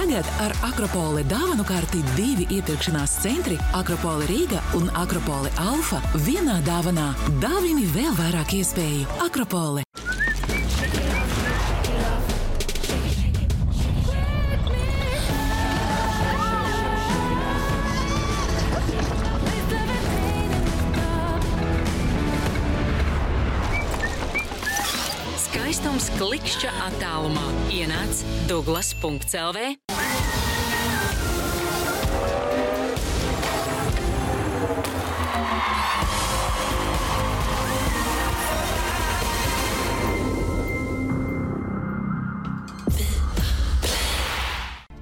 Tagad ar Akropole dāvanu karti 2 iepirkšanās centri Akropole Rīga un Akropole Alfa vienā dāvanā. Dāvini vēl vairāk iespēju. Akropole. Skaistums klikšķa attālumā. Ienāc Douglas.lv.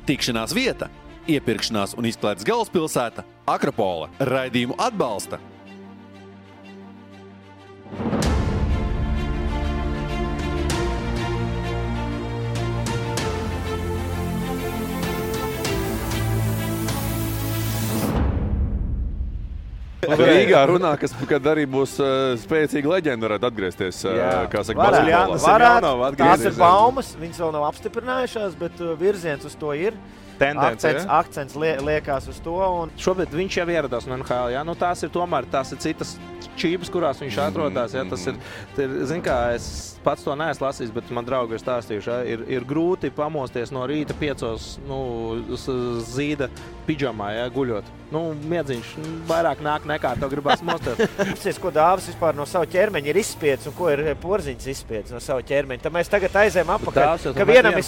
Tikšanās vieta, iepirkšanās un izklaides galvaspilsēta Akropole. Raidījumu atbalsta Rīgā runā, kad arī būs spēcīga leģenda, varētu atgriezties, kā saka, basketbolā. Tās ir baumas, viņas vēl nav apstiprinājušās, bet virziens uz to ir. Akcents liekās uz to. Un... Šobrīd viņš jau ieradās no NHL, ja? Nu, tās ir citas čības, kurās viņš atrodās. Ja? Tas ir, zin kā, es pats to neesmu lasījis, bet man draugi ir stāstījuši. Ja? Ir grūti pamosties no rīta 5 zīda pidžamā, ja? Guļot. Miedziņš vairāk nāk nekā tev gribās mosties. Apsies, ko Dāvis vispār no savu ķermeņa ir izspiedis un ko ir Porziņš izspiedis no savu ķermeņa. Tad mēs tagad aizējam apakaļ, ka vienam ir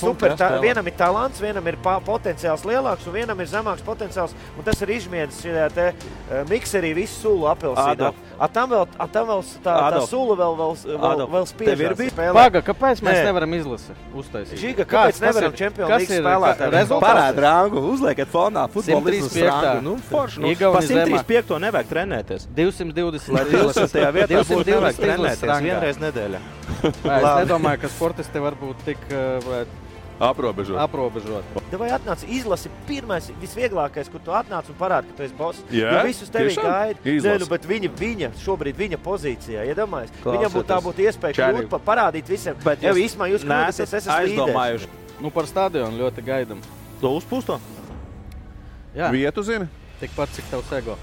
vienam ir talants, vienam ir potenciāls lielāks un vienam ir zemāks potenciāls. Un tas ir izmiedis šajā te mikserī visu sulu apelsīnu. Tam vēl tā sula vēl spiežās. Paga, kāpēc mēs nevaram uztaisīt? Žiga, kāpēc nevaram Champions League spēlētāju? Parāda rangu, uzliekat fonā futbolistus rangu. Forši, pa 135 nevajag trenēties. 220, lai 20. vietā būtu nevajag trenēties vienreiz nedēļā. Es nedomāju, ka sportisti var būt tik aprobežot. Vai atnāc izlasi pirmais, visvieglākais, kur tu atnāc un parādi, ka tu esi boss. Jo visus tevi gaida, bet viņa šobrīd viņa pozīcijā, iedomājies. Viņam būtu iespēja kļūt, parādīt visiem. Bet īstumā jūs kļūdaties, es esmu aizdomājuši. Par stadionu ļoti gaidam. To uzpūsto? Jā. Vietu zini? Tikpat, cik tavs ego.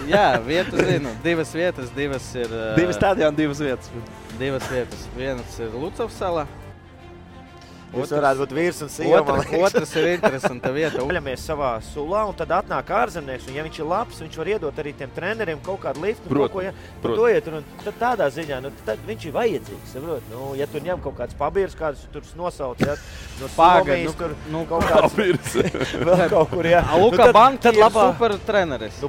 Jā, vietu zinu. 2 vietas, 2 ir... 2 stadioni, 2 vietas. 2 vietas. Vienas ir Lucavs salā. Tas varētu būt vīrs un sieva. Otrs ir interesanta vieta. Vaļamies savā sulā un tad atnāk ārzemnieks. Un ja viņš ir labs, viņš var iedot arī tiem treneriem kaut kādu liftu. Tad tādā ziņā, tad viņš ir vajadzīgs. Ja tur ņem kaut kāds pabīrs, kādus tur nosauc, ja, no Slovijas, tur kaut kāds... Vēl kaut kur, jā. Luka Banka ir super treneris.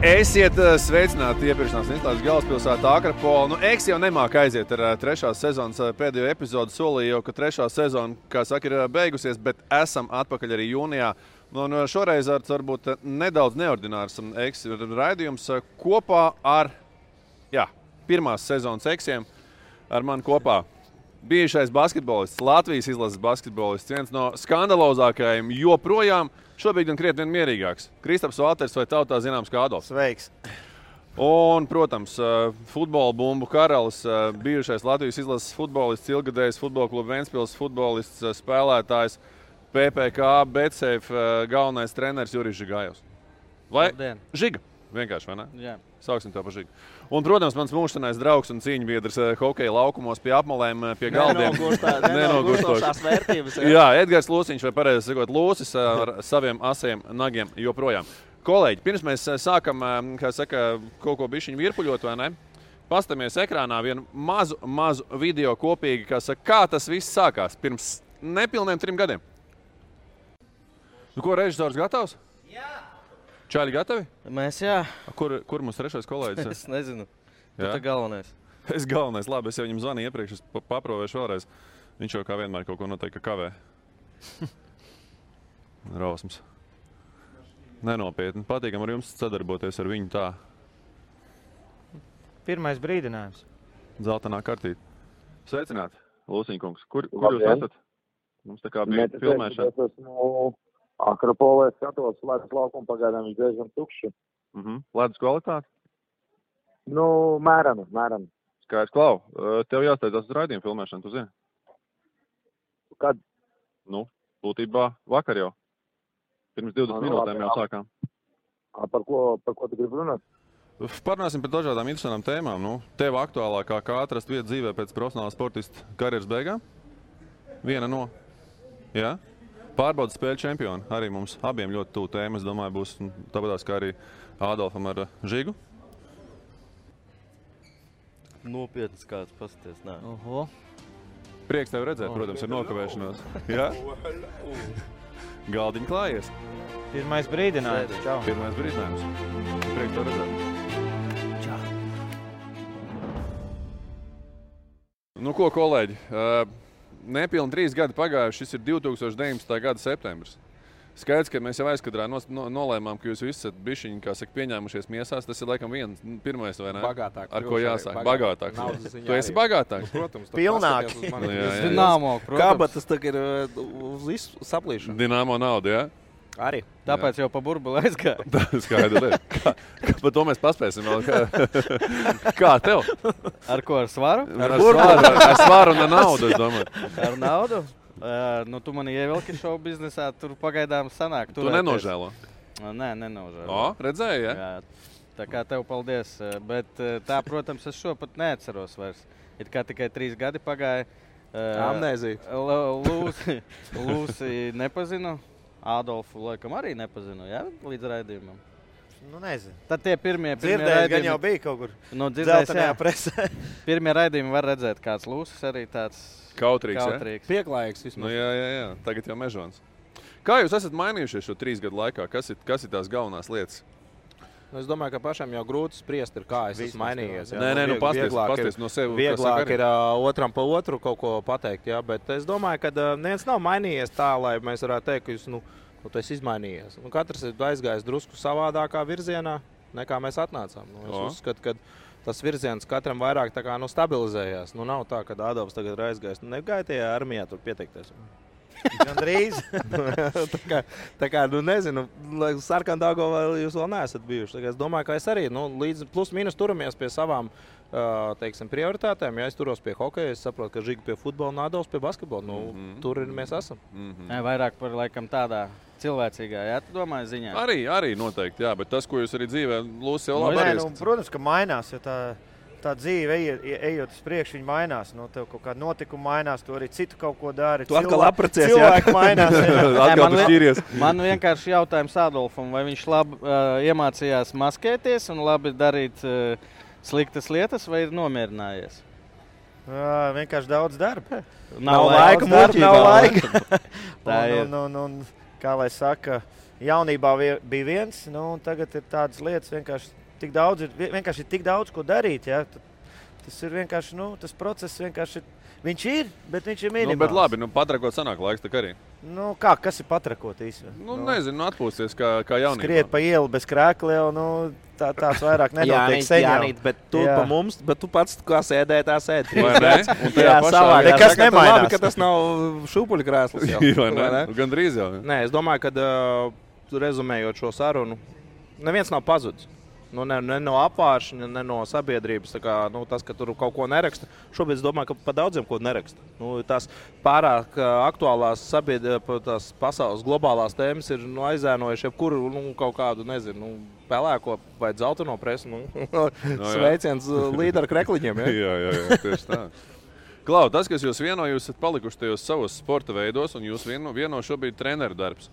Esiet sveicināti iepirkšanās un izklaides galvaspilsētā Akropole. Eks jau nemāk aiziet ar 3. sezonas pēdējo epizodu. Solīju jau, ka 3. sezona, kā saka, ir beigusies, bet esam atpakaļ arī jūnijā. Un šoreiz varbūt nedaudz neordinārs Eks raidījums kopā ar, pirmās sezonas Eksiem ar mani kopā. Bijušais basketbolists, Latvijas izlases basketbolists, viens no skandalozākajiem joprojām. Šobrīd gan krietni mierīgāks. Kristaps Valters vai tautā zināms kā Adolfs. Sveiks. Un, protams, futbola bumbu karalis, bijušais Latvijas izlases futbolists, ilgadējs futbola kluba Ventspils futbolists, spēlētājs, PPK, Betsafe galvenais treneris Jurijs Žigājevs. Vai Žiga? Vienkārši, vai ne? Jā. Sauksim tev par Žigu. Un, protams, mans mūžsanais draugs un cīņbiedrs hokeja laukumos pie apmalēm, pie galdiem. Nenogurstošās vērtības. Jā, Edgars Lūsiņš, vai pareizi sakot, Lūsis ar saviem asiem nagiem joprojām. Kolēģi, pirms mēs sākam, kā saka, kaut ko bišķiņu virpuļot, vai ne? Pastamies ekrānā vienu mazu video kopīgi, kā tas viss sākās pirms nepilniem 3 gadiem. Ko, režisors gatavs? Jā. Čāļi gatavi? Mēs, jā. Kur mums 3. kolēģis? Es nezinu. Tu tā galvenais. Es galvenais. Labi, es jau viņam zvanīju iepriekš, es paprovēšu vēlreiz. Viņš jau kā vienmēr kaut ko noteikti kavē. Rausmas. Nenopietni. Patīkam ar jums sadarboties ar viņu tā. Pirmais brīdinājums. Zeltainā kartīte. Sveicināti, Lūsiņkungs. Kur jūs esat? Mums tā kā bija filmēšana. Akropolē skatos, ledus laukumu pagaidām viņš diezgan tukši. Ledus kvalitāte? Nu, mērami. Skaidrs, Klau. Tev jāsteidzās uz raidījumu filmēšanu, tu zini? Kad? Nu, būtībā vakar jau. Pirms 20 minūtēm jau sākām. Par ko tu gribi runāt? Parunāsim par dažādām interesantām tēmām. Nu, tev aktuālākā, kā atrast vietu dzīvē pēc profesionāla sportista karjeras beigām? Viena no. Jā? Pārbaudas spēļu čempioni. Arī mums abiem ļoti tuvu tēma. Es domāju, būs tāpatās kā arī Ādolfam ar Žigu. Nopietnas kāds pasties, nē. Prieks tevi redzēt, protams, ir nokavēšanos. Jā? Galdiņi klājies. Pirmais brīdinājums. Čau. Pirmais brīdinājums. Prieks tevi redzēt. Čau. Nu ko, kolēģi? Nepilni 3 gadi pagājuši, šis ir 2019. gada septembris. Skaidrs, ka mēs jau aizkadrā nolēmām, ka jūs visi esat bišķiņi, kā saka, pieņēmušies miesās. Tas ir laikam pirmais, vai ne? Bagātāk. Ar ko jāsāk? Bagātāks. Tu esi bagātāks? Protams. Pilnāk. Dināmo, protams. Kabatas tā ir uz visu saplīšanu. Dināmo naudu, jā? Arī. Tāpēc jau pa burbuli aizgāja. Skaidrs. Par to mēs paspēsim vēl. Kā tev? Ar ko? Ar svaru? Ar svaru un ar naudu, es domāju. Ar naudu? Nu, tu mani ievilki šovu biznesā, tur pagaidām sanāk. Tu nenožēlo? Nē, nenožēlo. O, redzēji, ja? Jā, tā kā tev paldies. Bet tā, protams, es šo pat neatceros vairs. It kā tikai 3 gadi pagāja. Amnēzija. Lūsi nepazinu. Ādolfu laikam arī nepazinu, jā, līdz raidījumam. Nu, nezinu. Tad tie pirmie dzirdējis, gan jau bija kaut kur dzeltenajā presē. Pirmie raidījumi var redzēt, kāds Lūsis arī tāds kautrīgs. Pieklājīgs vismaz. Nu, jā. Tagad jau mežons. Kā jūs esat mainījušies šo 3 gadu laikā? Kas ir tās galvenās lietas? Nu, es domāju, ka pašam jau grūti spriest, kā es esmu mainījies. Jā. Nē, pasties no sevi. Vieglāk ir otram pa otru kaut ko pateikt, jā, bet es domāju, ka neviens nav mainījies tā, lai mēs varētu teikt, ka tu esi izmainījies. Katrs ir aizgājis drusku savādākā virzienā, nekā mēs atnācām. Es uzskatu, ka tas virziens katram vairāk tā kā stabilizējās. Nav tā, ka Ādolfs tagad ir aizgājis. Negāja tajā armijā tur pieteikties. Gandrīz. tā kā nezinu, Sarkandāgo vēl jūs vēl neesat bijuši. Es domāju, ka es arī līdz plus mīnus turamies pie savām prioritātēm. Ja es turos pie hokeja, es saprotu, ka Žiga pie futbola un Ādolfs pie basketbola. Tur mēs esam. Vairāk par laikam tādā cilvēcīgā, jā, tu domāji ziņā? Arī noteikti, jā, bet tas, ko jūs arī dzīvē, Lūsis jau labi arī. Protams, ka mainās, ja tā dzīve, ejot uz priekšu, viņa mainās. Tev kaut kāda notikuma mainās, tu arī citu kaut ko dari. Tu atkal apracies, cilvēki mainās. Atkal tu šķīries. Man vienkārši jautājums Ādolfam, vai viņš labi iemācījās maskēties un labi darīt sliktas lietas, vai ir nomierinājies? Vienkārši daudz darba. Nav laika muļķībā. Nav laika. Tā ir. Kā lai saka, jaunībā bija viens, un tagad ir tādas lietas vienkārši. Vienkārši ir tik daudz, ko darīt. Ja? Tas ir vienkārši, tas process vienkārši viņš ir, bet viņš ir minimāls. Bet labi, patrakot sanāk laiks tak arī. Kas ir patrakot īstenībā? Nezinu, atpūsties kā jaunībā. Skriet pa ielu bez krēkla jau, tāds vairāk nenotiek seņā. Bet tu pa mums, bet tu pats kā sēdēji, tā sēdi. Vai ne? Jā, savāk. Nekas nemainās. Labi, ka tas nav šūpuļu krēsls jau. Vai ne? Gandrīz jau. Nē, es domāju, ka rezumējot šo sarunu, neviens nav pazudis. Ne no apvāršņa, ne no sabiedrības. Tas, ka tur kaut ko neraksta. Šobrīd es domāju, ka pa daudziem ko neraksta. Tās pārāk aktuālās tās pasaules globālās tēmas ir aizēnojuši jebkuru kaut kādu, nezinu, pelēko vai dzelteno presu. Sveiciens līderu krekliņiem. Ja? Jā, tieši tā. Klau, tas, kas jūs vieno, jūs esat palikuši tajos savos sporta veidos, un jūs vieno šobrīd treneru darbs.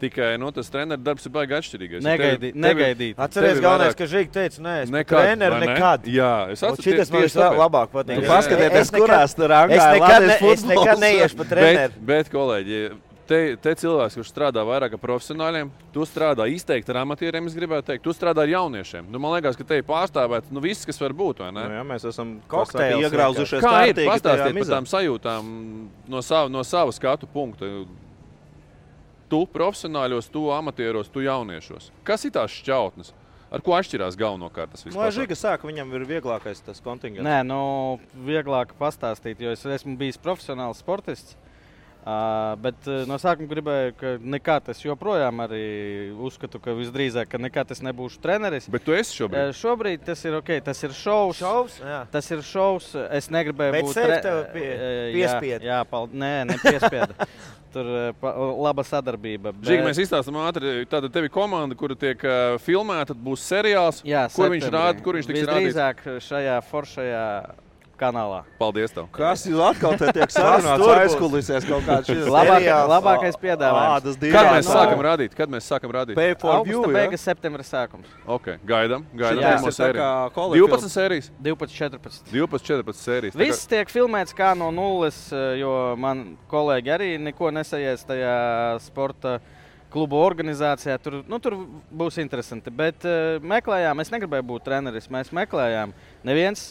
Tikai tas treneru darbs ir baigi atšķirīgais. Negaidīt. Atceries galvenais, ka Žiga teica, nē, es treneru nekad. Jā, es atceros. Šitas man vislabāk patīk. Tu paskatieties, kurās tur rangā es nekad neiešu pa treneru. Bet, kolēģi, te cilvēks, kurš strādā vairāk ar profesionāļiem, tu strādā izteikti ar amatieriem, es gribētu teikt, tu strādā ar jauniešiem. Man liekas, ka te ir pārstāvēt viss, kas var būt, vai ne? Jā, mēs esam iegrauzušies kā ir? Pastāstiet par tām sajūtām no sava skatu punkta. Tu profesionāļos, tu amatieros, tu jauniešos. Kas ir tās šķautnes? Ar ko atšķirās galvenokārt tas viss? Žiga saka, viņam ir vieglākais tas kontingents. Nē, vieglāk pastāstīt, jo es esmu bijis profesionāls sportists. Bet no sākuma gribēju, ka nekā tas joprojām arī uzskatu, ka visdrīzāk, ka nekā tas nebūšu treneris. Bet tu esi šobrīd? Šobrīd tas ir ok, tas ir šovs. Tas ir šovs, es negribēju būt piespied. Jā, nepiespieda. Tur laba sadarbība. Žīgi, mēs izstāstam ātri, tātad tevi komanda, kura tiek filmēta, tad būs seriāls. Jā, kur viņš tiks rādīts? Visdrīzāk šajā foršajā kanālā. Paldies tev. Kas jūs atkal te tiek sarunāts aizkulisēs kaut kāds šis? Labākais piedāvājums. Kad mēs sākam rādīt? Pay for view, Augusta beigas, septembra sākums. Ok, gaidām. Jā, pirmo sēriju. 12 sērijas? 12-14 sērijas. Viss tiek filmēts kā no nulles, jo man kolēģi arī neko nesajies tajā sporta klubu organizācijā. Tur būs interesanti, bet meklējām, es negribēju būt treneris, mēs meklējām. Neviens,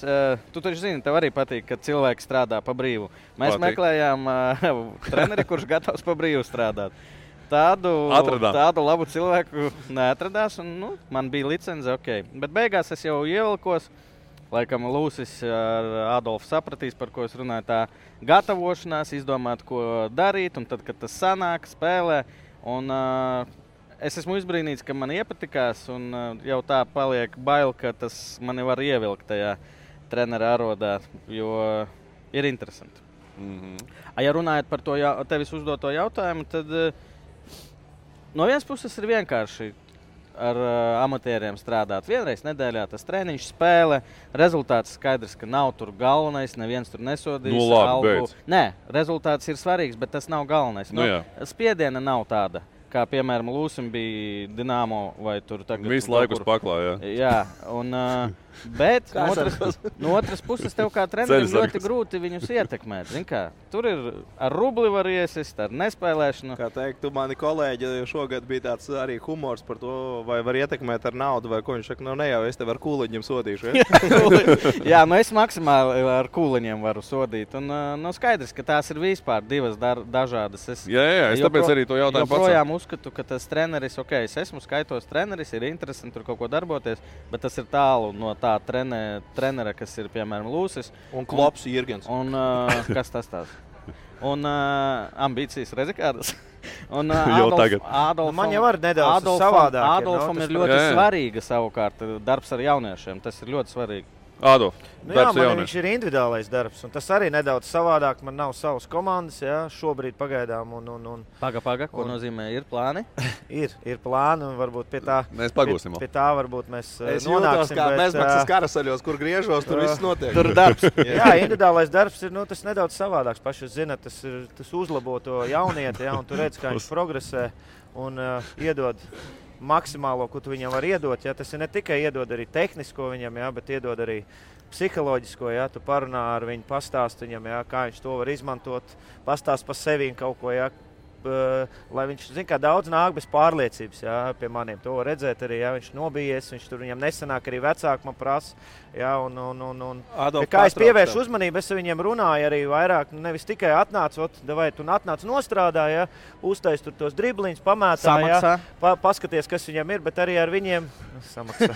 tu taču zini, tev arī patīk, kad cilvēki strādā pa brīvu. Mēs meklējām treneri, kurš gatavs pa brīvu strādāt. Tādu labu cilvēku neatradās, un man bija licence, ok. Bet beigās es jau ievilkos, laikam Lūsis ar Adolfu sapratīs, par ko es runāju, tā gatavošanās, izdomāt, ko darīt, un tad, kad tas sanāk, spēlē. Un es esmu izbrīnīts, ka man iepatikās, un jau tā paliek bail, ka tas mani var ievilkt tajā trenera arodā, jo ir interesanti. Ja runājot par to tevis uzdoto jautājumu, tad no vienas puses ir vienkārši ar amatieriem strādāt. Vienreiz nedēļā tas treniņš, spēle, rezultāts skaidrs, ka nav tur galvenais, neviens tur nesodīs. Beidz. Nē, rezultāts ir svarīgs, bet tas nav galvenais. Spiediena nav tāda, kā piemēram Lūsim bija Dinamo vai tur tagad. Visu laiku uz paklā, jā. Jā, un, bet no otras puses tev kā trenerim ļoti grūti viņus ietekmēt. Zin kā, tur ir ar rubli var iesist, ar nespēlēšanu. Kā teikt, tu mani kolēģi šogad bija tāds arī humors par to, vai var ietekmēt ar naudu, vai ko viņš saka, ne jau, es tev ar kūliņiem sodīšu. Jā, es maksimāli ar kūliņiem varu sodīt. Un skaidrs, ka tās ir vispār divas dažādas. Jā, es tāpēc arī to jautājumu pats. Joprojām uzskatu, ka tas treneris, es esmu skaitos treneris, ir interesanti tur kaut ko darboties, bet tas ir tālu no tā trenera, kas ir, piemēram, Lūsis. Un Klops Jirgens. Un kas tas tās? Un ambīcijas rezikādas. Un man jau var nedaudz savādāk. Adolfam ir ļoti svarīga savukārt darbs ar jauniešiem. Tas ir ļoti svarīgi. Ado, viņš ir individuālais darbs, un tas arī nedaudz savādāk. Man nav savas komandas, šobrīd pagaidām. Paga, ko nozīmē ir plāni? ir plāni, un varbūt pie tā mēs pagūsim. Pie tā varbūt mēs nonāksim. Kā bezmaksas karasaļos, kur griežos, tur viss notiek. Tur darbs. Jā, individuālais darbs ir tas nedaudz savādāks. Paši zināt, tas uzlabo to jaunieti, un tu redz, kā viņš progresē un iedod maksimālo, ko tu viņam var iedot. Tas ir ne tikai iedod arī tehnisko viņam, bet iedod arī psiholoģisko. Tu parunā ar viņu, pastāst viņam, kā viņš to var izmantot, pastāst par sevi kaut ko. Lai viņš, zin kā, daudz nāk bez pārliecības, pie maniem. To var redzēt arī, viņš nobijies, viņš tur viņam nesanāk, arī vecāki man prasa. Kā es pievēršu uzmanību, es viņiem runāju arī vairāk, nevis tikai atnāc, vai tu atnāc nostrādā, uztais tur tos dribliņus, pamētā, paskaties, kas viņam ir, bet arī ar viņiem samaksā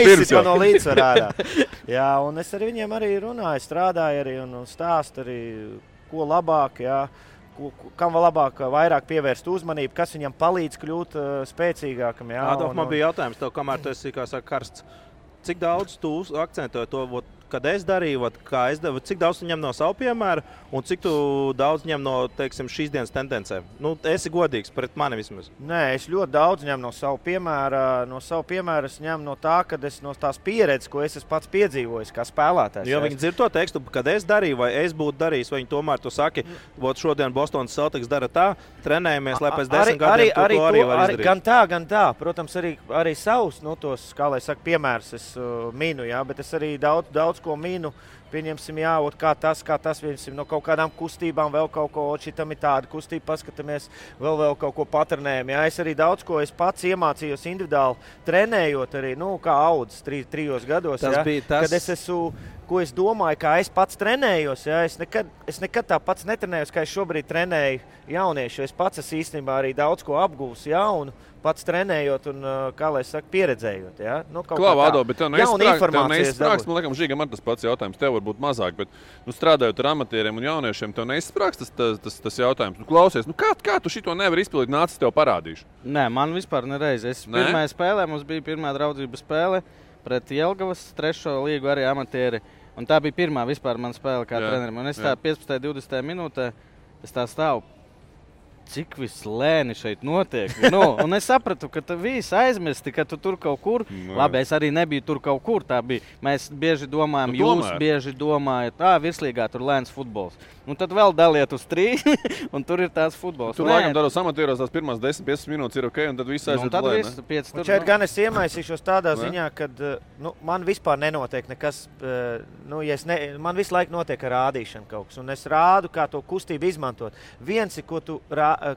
pirms jau. No līdzsvarā ārā. Un es ar viņiem arī runāju, strādāju arī un stāstu arī, ko labāk, kam vēl labāk, vairāk pievērst uzmanību, kas viņam palīdz kļūt spēcīgākam. Adolf, man bija jautājums tev, kamēr tu esi, kā saka, karsts. Cik daudz tu akcentēji to, kad es darīju, kā es devu, cik daudz tu ņem no savu piemēru un cik tu daudz ņem no, teiksim, šīs dienas tendencēm? Esi godīgs pret mani vismaz. Nē, es ļoti daudz ņemu no savu piemēru. No savu piemēru es ņemu no tā, kad es no tās pieredzes, ko es esmu pats piedzīvojis kā spēlētājs. Jo viņi dzird to tekstu, kad es darīju vai es būtu darījis, vai viņi tomēr tu saki, šodien Bostonas Celtics dara tā, trenējamies, lai pēc 10 gadiem to arī var izdarīt. Gan tā. Protams, arī savus, tos, kā lai saka, piemērus es minu, bet es arī daudz ko minu, pieņemsim, kā tas, pieņemsim, no kaut kādām kustībām, vēl kaut ko, šitam ir tāda kustība, paskatāmies, vēl kaut ko patrenējam. Es arī daudz ko es pats iemācījos individuāli trenējot arī, kā audzis 3 gados, kad es esmu, ko es domāju, kā es pats trenējos, es nekad tā pats netrenējos, kā es šobrīd trenēju jauniešu, es pats esmu īstenībā arī daudz ko apgūs jaunu, pats trenējot un, kā lai saka, pieredzējot. Klā, Vado, bet tev neizsprāgst, man liekas, Žīgam ar tas pats jautājums. Tev varbūt mazāk, bet strādājot ar amatieriem un jauniešiem, tev neizsprāgs tas jautājums. Klausies, kā tu šito nevari izpildīt, nāc, es tev parādīšu? Nē, man vispār nereiz. Pirmajā spēlē mums bija pirmā draudzības spēle pret Jelgavas 3. līgu arī amatieri. Un tā bija pirmā vispār mana spēle kā trenerim. Un es tā 15. 20. minūtē, es tā stāvu. Cik viss lēni šeit notiek. Un es sapratu, ka tu visi aizmirsti, ka tu tur kaut kur. Labi, es arī nebiju tur kaut kur. Tā bija. Mēs bieži domājam, jūs bieži domājat, virslīgā tur lēns futbols. Un tad vēl daliet uz 3, un tur ir tās futbols. Tur laikam tādos amatieros tās pirmās 10-15 minūtes ir ok, un tad viss aiziet lēni. Šeit gan es iemaisīšos tādā ziņā, kad man vispār nenotiek nekas, man visu laiku notiek ar rādīšanu kaut kas, un es rādu, kā to kustību izmantot. Viens ir,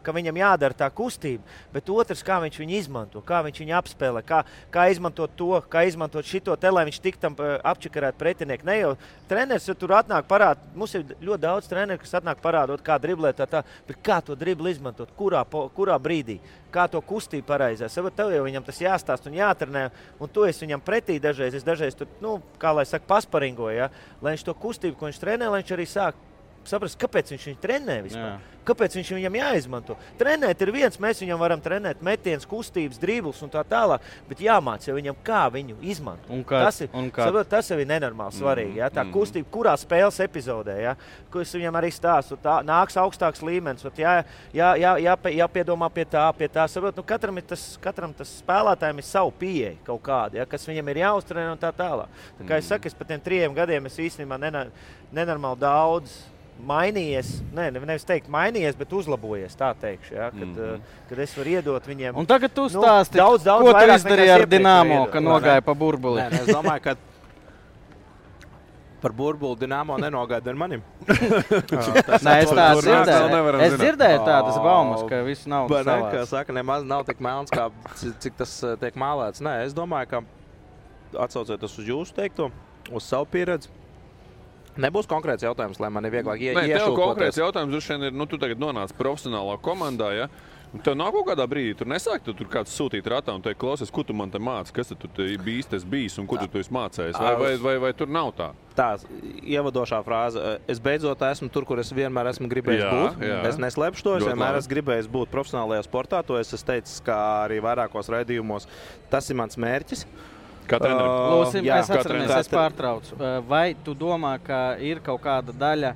ka viņam jādara tā kustība, bet otrs, kā viņš viņu izmanto, kā viņš viņu apspēlē, kā izmantot to, kā izmantot šito te, lai viņš tik tam apčakarēt pretinieku. Ne jau treneris tur atnāk parād, mums ir ļoti daudz treneri, kas atnāk parādot, kā driblēt bet kā to dribli izmantot, kurā brīdī, kā to kustību pareizē. Tev jau viņam tas jāstāst un jātrenē, un to es viņam pretī dažreiz, tur, kā lai saka, pasparingoju, ja? Lai viņš to kustību, ko viņš trenē, lai viņš arī sāk saprast, kāpēc viņš viņu trenē vispār. Kāpēc viņš viņam jāizmanto? Trenēt ir viens, mēs viņam varam trenēt metiens, kustības, dribles un tā tālāk, bet jāmāc jau viņam, kā viņu izmantot. Tas jau ir nenormāli svarīgi. Ja? Tā kustība, kurā spēles epizodē, ja? Ko es viņam arī stāstu, nāks augstāks līmenis, jāpiedomā pie tā. Katram tas spēlētājiem ir savu pieeja kaut kāda, ja? Kas viņam ir jāuztrenē un tā tālāk. Tā kā es saku, es pa tiem 3 gadiem es īstenībā nenormāli daudz mainījies, nevis teikt mainījies, bet uzlabojies, tā teikšu, ja? Kad es varu iedot viņiem. Un tagad tu stāsti, ko tu izdarīji ar Dinamo, ka nogāja pa burbuli? Es domāju, ka par burbuli Dinamo nenogāja ar manim. Es dzirdēju tādas baumas, ka visu naudu savās. Kā saka, nemaz nav tik melns, kā cik tas tiek mālēts. Nē, es domāju, ka atsaucoties uz jūsu teikto, uz savu pieredzi, nebūs konkrēts jautājums, lai man ir vieglāk iešūkoties. Tev konkrēts jautājums droši vien ir, tu tagad nonāc profesionālā komandā, ja? Un tev nav kaut kādā brīdī, tur nesāk, tur kāds sūtīt ratā un teikt, klausies, ko tu man te māci, kas tu bijis un ko tu esi mācējis, vai tur nav tā? Tā, ievadošā frāze, es beidzot esmu tur, kur es vienmēr esmu gribējis būt. Es neslēpšu to, es vienmēr esmu gribējis būt profesionālajā sportā, to es teicu, kā arī vairākos raidījumos, tas ir mans mērķis. Lūsim, mēs atceramies, es pārtraucu. Vai tu domā, ka ir kaut kāda daļa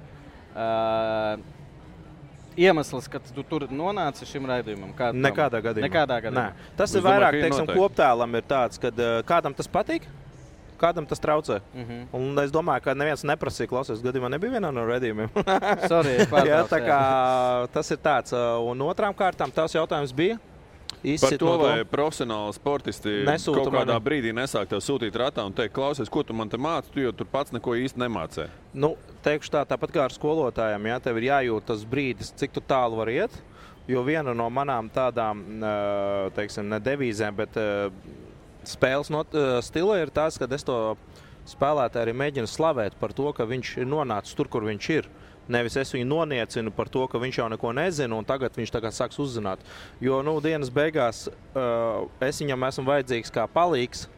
iemesls, ka tu tur nonāci šim raidījumam? Nekādā gadījumā. Tas ir vairāk, teiksim, koptēlam ir tāds, kad kādam tas patīk, kādam tas traucē. Un es domāju, ka neviens neprasīja, klausies, gadījumā nebija vienā no raidījumiem. Sorry, pārtraucu. Tā kā tas ir tāds. Un otrām kārtām tās jautājums bija. Par to, vai profesionāli sportisti kaut kādā brīdī nesāk tev sūtīt ratā un teikt, klausies, ko tu man te māci, tu jau tur pats neko īsti nemācē. Teikšu tāpat kā ar skolotājiem, ja, tev ir jājūt tas brīdis, cik tu tālu var iet, jo viena no manām tādām, teiksim, ne devīzēm, bet spēles stila ir tās, kad es to spēlētāju arī mēģinu slavēt par to, ka viņš ir nonācis tur, kur viņš ir. Nevis es viņu noniecinu par to, ka viņš jau neko nezina, un tagad viņš tagad sāks uzzināt. Jo, dienas beigās es viņam esmu vajadzīgs kā palīgs,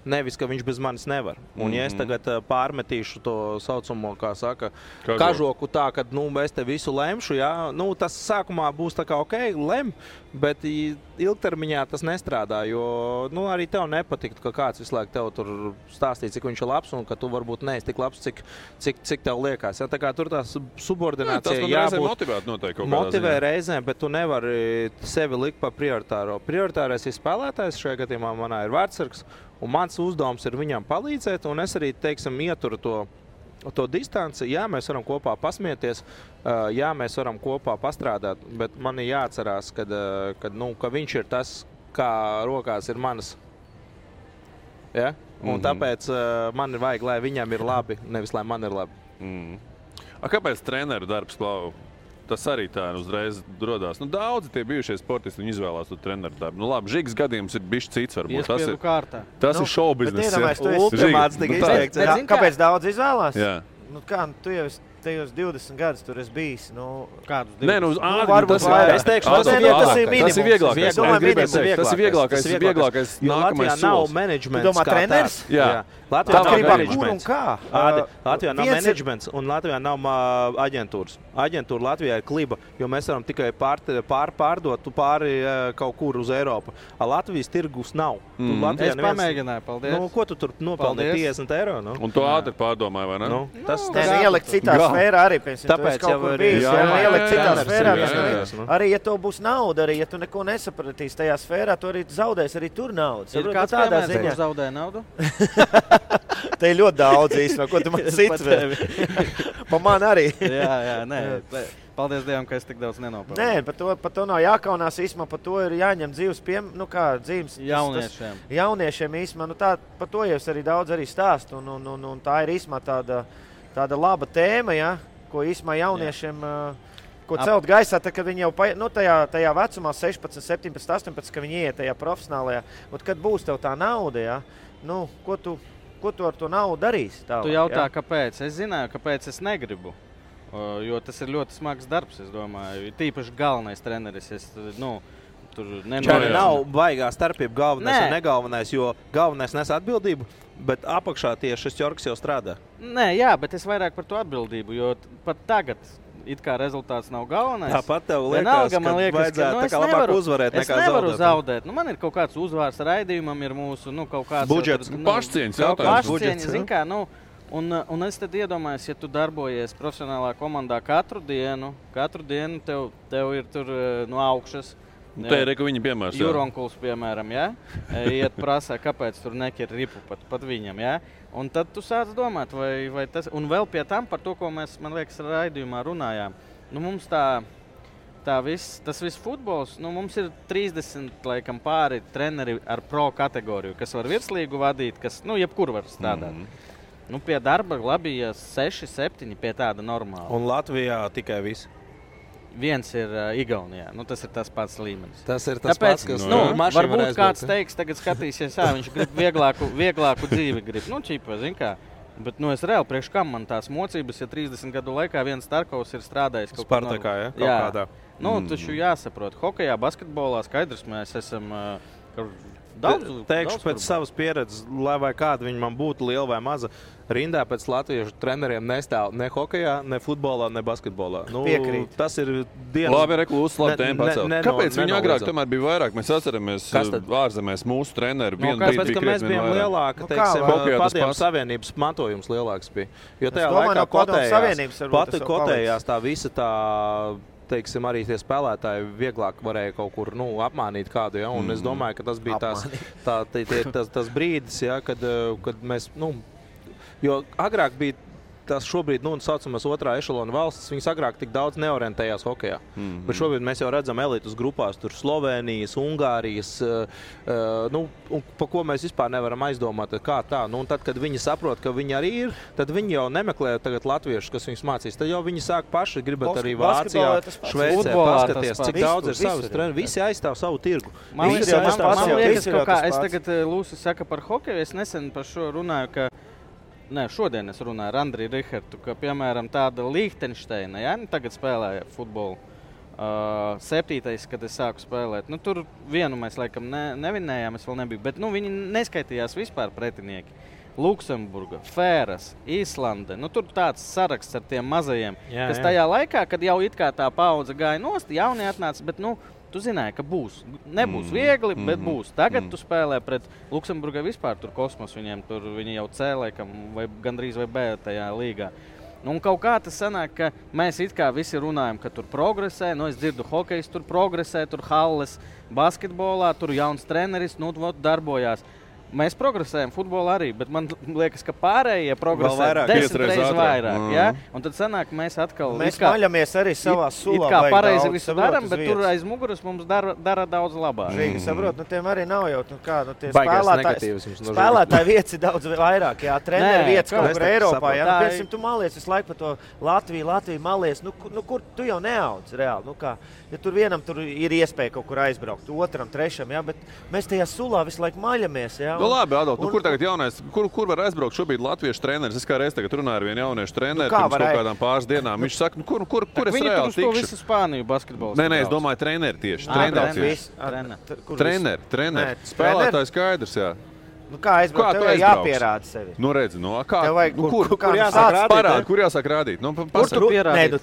nevis, ka viņš bez manis nevar. Un ja es tagad pārmetīšu to saucamo, kā saka, kažoku tā, ka, es te visu lemšu, jā, tas sākumā būs tā kā ok, lem, bet ilgtermiņā tas nestrādā, jo, arī tev nepatiktu, ka kāds visu laiku tev tur stāstīja, cik viņš ir labs, un ka tu varbūt neesi tik labs, cik tev liekas. Ja, tā kā tur tās subordinācija jābūt motivē reizēm, bet tu nevari sevi likt pa prioritāro. Prioritārais ir spēlētājs, šajā gadījumā manā ir vārdsargs, un mans uzdevums ir viņam palīdzēt, un es arī, teiksim, ieturu to distanci. Jā, mēs varam kopā pasmieties, jā, mēs varam kopā pastrādāt, bet man ir jāatcerās, ka viņš ir tas, kā rokās ir manas. Ja? Un tāpēc man ir vajag, lai viņam ir labi, nevis lai man ir labi. Kāpēc treneru darbs, Klau? Tas arī tā uzreiz rodās. Daudzi tie bijušie sportisti izvēlās to treneru darbu. Labi, Žigs gadījums ir bišķi cits varbūt. Tas ir šoubiznes. Kāpēc daudz izvēlās? Jā. Tu jau tajos 20 gadus tur esi bijis. Kādus 20? Nē, varbūt vairāk. Es teikšu, tas ir vieglākais. Tas ir vieglākais. vieglākais. Jo Latvijā nav menedžments. Tu domā, treneris? Jā. Latvijā nav Atkarībā, kur un menedžments. kā. Latvijā nav menedžments un Latvijā nav aģentūras. Aģentūra Latvijā ir kliba, jo mēs varam tikai pārdot pāri kaut kur uz Eiropu. Latvijas tirgus nav. Es pamēģināju, paldies. Ko tu tur nopelnīji 50 eiro? Un tu ātri pārdomāji, vai ne? Tas ielikt citā sfērā arī, piemēram, tāpēc jau var ielikt citā sfērā. Arī, ja tev būs nauda, arī ja tu neko nesapratīsi tajā sfērā, tu arī zaudēsi arī tur naudu. Ir kāds piemērs, kur zaudēja naudu? Te ir ļoti daudz īstenībā, ko tu man cits vēl. Pa man arī. Jā, nē. Paldies Dievam, ka es tik daudz nenopelnu. Nē, par to nav jākaunās īstenībā, par to ir jāņem dzīves dzīves jauniešiem. Jauniešiem īstenībā, par to jau es arī daudz arī stāstu, un tā ir īstenībā tāda laba tēma, ja, ko īstenībā jauniešiem, ko celt gaisā, tad, kad viņi jau tajā vecumā 16, 17, 18, kad viņi iet tajā profesionālajā, un kad būs tev tā nauda, ja, ko tu ar to naudu darīsi? Tu jautā, kāpēc? Es zināju, kāpēc es negribu. Jo tas ir ļoti smags darbs, es domāju. Tīpaši galvenais treneris. Tur nav baigā starpība galvenais un negalvenais, jo galvenais nes atbildību, bet apakšā tieši šis ķorks jau strādā. Nē, jā, bet es vairāk par to atbildību, jo pat tagad it kā rezultāts nav galvenais. Tāpat tev liekas, ka vajadzētu tā kā labāk uzvarēt nekā zaudēt. Es nevaru zaudēt. Man ir kaut kāds uzvārs raidījumam, ir mūsu kaut kāds budžets, pašcieņas jautājums. Pašcieņas, zin kā, Un es tad iedomājos, ja tu darbojies profesionālā komandā katru dienu tev ir tur no augšas. Te ir, ka viņi piemērs. Juronkuls, piemēram, ja? Iet prasā, kāpēc tur nekir ripu pat viņam, ja? Un tad tu sāc domāt, vai tas... Un vēl pie tam par to, ko mēs, man liekas, raidījumā runājām. Mums tas viss futbols, mums ir 30, laikam, pāri treneri ar pro kategoriju, kas var virslīgu vadīt, kas, jebkur var strādāt. Pie darba labi, ja 6, 7 pie tāda normāla. Un Latvijā tikai viss. Viens ir Igaunijā. Tas ir tas pats līmenis. Tas ir tas pats, kas varbūt kāds teiks, tagad skatīsies, viņš grib vieglāku dzīvi grib. Čipa, zin kā. Bet es reāli priekš kam man tās mocības, ja 30 gadu laikā viens Starkovs ir strādājis kaut kādā. Spartakā, ja? Kaut kādā. Taču jāsaprot. Hokejā, basketbolā skaidrs mēs esam... Teikšu pēc savas pieredzes, lai vai kāda viņa man būtu liela vai maza, rindā pēc latviešu treneriem nestāv ne hokejā, ne futbolā, ne basketbolā. Piekrīt. Tas ir dienas... Labi, reklūs, labi tēma pacelt. Kāpēc viņi agrāk tomēr bija vairāk? Mēs atceramies ārzemēs mūsu treneri. Kāpēc, ka mēs bijām lielāka, Padomju Savienības mantojums lielāks bija. Jo tajā laikā kotējās tā visa tā... Teiksim, arī tie spēlētāji vieglāk varēja kaut kur apmānīt kādu. Ja? Un es domāju, ka tas bija tas brīdis, ja, kad mēs... Jo agrāk bija tas šobrīd, saucamās otrā ešalona valstis, viņas agrāk tik daudz neorientējās hokejā. Bet šobrīd mēs jau redzam elitus grupās, tur Slovēnijas, Ungārijas, pa ko mēs vispār nevaram aizdomāt, kā tā. Un tad, kad viņi saprot, ka viņi arī ir, tad viņi jau nemeklē tagad latviešus, kas viņus mācīs. Tad jau viņi sāk paši gribat arī Vācijā, Šveicē, paskaties, cik daudz ir savas treneris. Visi aizstāv savu tirgu. Man liekas, es tagad Lūsis saka par hokeju, es nesen par šo runāju, ka šodien es runāju ar Andriju Rihartu, ka, piemēram, tāda Lichtensteina, tagad spēlēja futbolu. 7. kad es sāku spēlēt. Tur vienu mēs, laikam, nevinējām, es vēl nebiju, bet viņi neskaitījās vispār pretinieki. Luksemburga, Fēras, Īslande. Tur tāds saraksts ar tiem mazajiem, kas tajā laikā, kad jau it kā tā paudze gāja nost, jaunie atnāca, bet, tu zināji, ka būs. Nebūs viegli, bet būs. Tagad tu spēlē pret Luksemburgai vispār tur kosmos, viņi jau C, laikam, vai gandrīz vai B tajā līgā. Un kaut kā tas sanāk, ka mēs it kā visi runājam, ka tur progresē, es dzirdu hokejs, tur progresē, tur halles, basketbolā, tur jauns treneris, darbojās. Mēs progresējam futbolā arī, bet man liekas, ka pārējie progresē 10 reizes vairāk. Ja? Un tad sanāk, mēs atkal... Mēs maļamies arī savā sulā. It kā pareizi visu daram, bet tur aiz muguras mums dara daudz labāk. Žīgi, saprot, tiem arī nav jau tie spēlētāji vietas ir daudz vairāk. Jā, treneri vietas kaut kur Eiropā. Piemēram, tu malies visu laiku par to Latviju malies. Kur tu jau neaudz reāli? Ja tur vienam tur ir iespēja kaut kur aizbraukt, otram, trešam, bet mēs tajā sulā visu laiku maļamies. Nu, labi, Adolf, kur tagad jaunais, kur var aizbraukt šobrīd latviešu treneris? Es kā reiz tagad runāju ar vienu jauniešu treneri pirms kaut kādām pāris dienām. Viņš saka, kur es reāli tikšu? Visu Spāniju basketbolu. Nē, es domāju treneri tieši. Treneri. Spēlētāji skaidrs, jā. Nu, kā aizbraukt? Tev jāpierāda sevi. Nu, redzi, kā kur jāsāk parādīt? Kur jāsāk rādīt? Nu, kur tu pierādīt?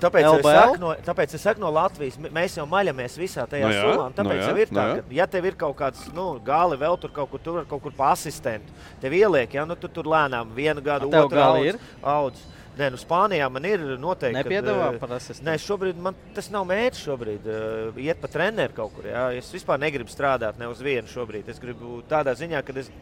Tāpēc es saku no Latvijas. Mēs jau maļamies visā tajā solām. Tāpēc jau ir tā, ka, ja tev ir kaut kāds, gali vēl tur kaut kur pa asistentu, tev ieliek, tu tur lēnām 1 gadu, 2 audz. Nē, Spānijā man ir noteikti. Nepiedāvā par asistentu? Nē, šobrīd man tas nav mērķis šobrīd. Iet pa treneru kaut kur. Jā. Es vispār negribu strādāt ne uz vienu šobrīd. Es gribu tādā ziņā, ka es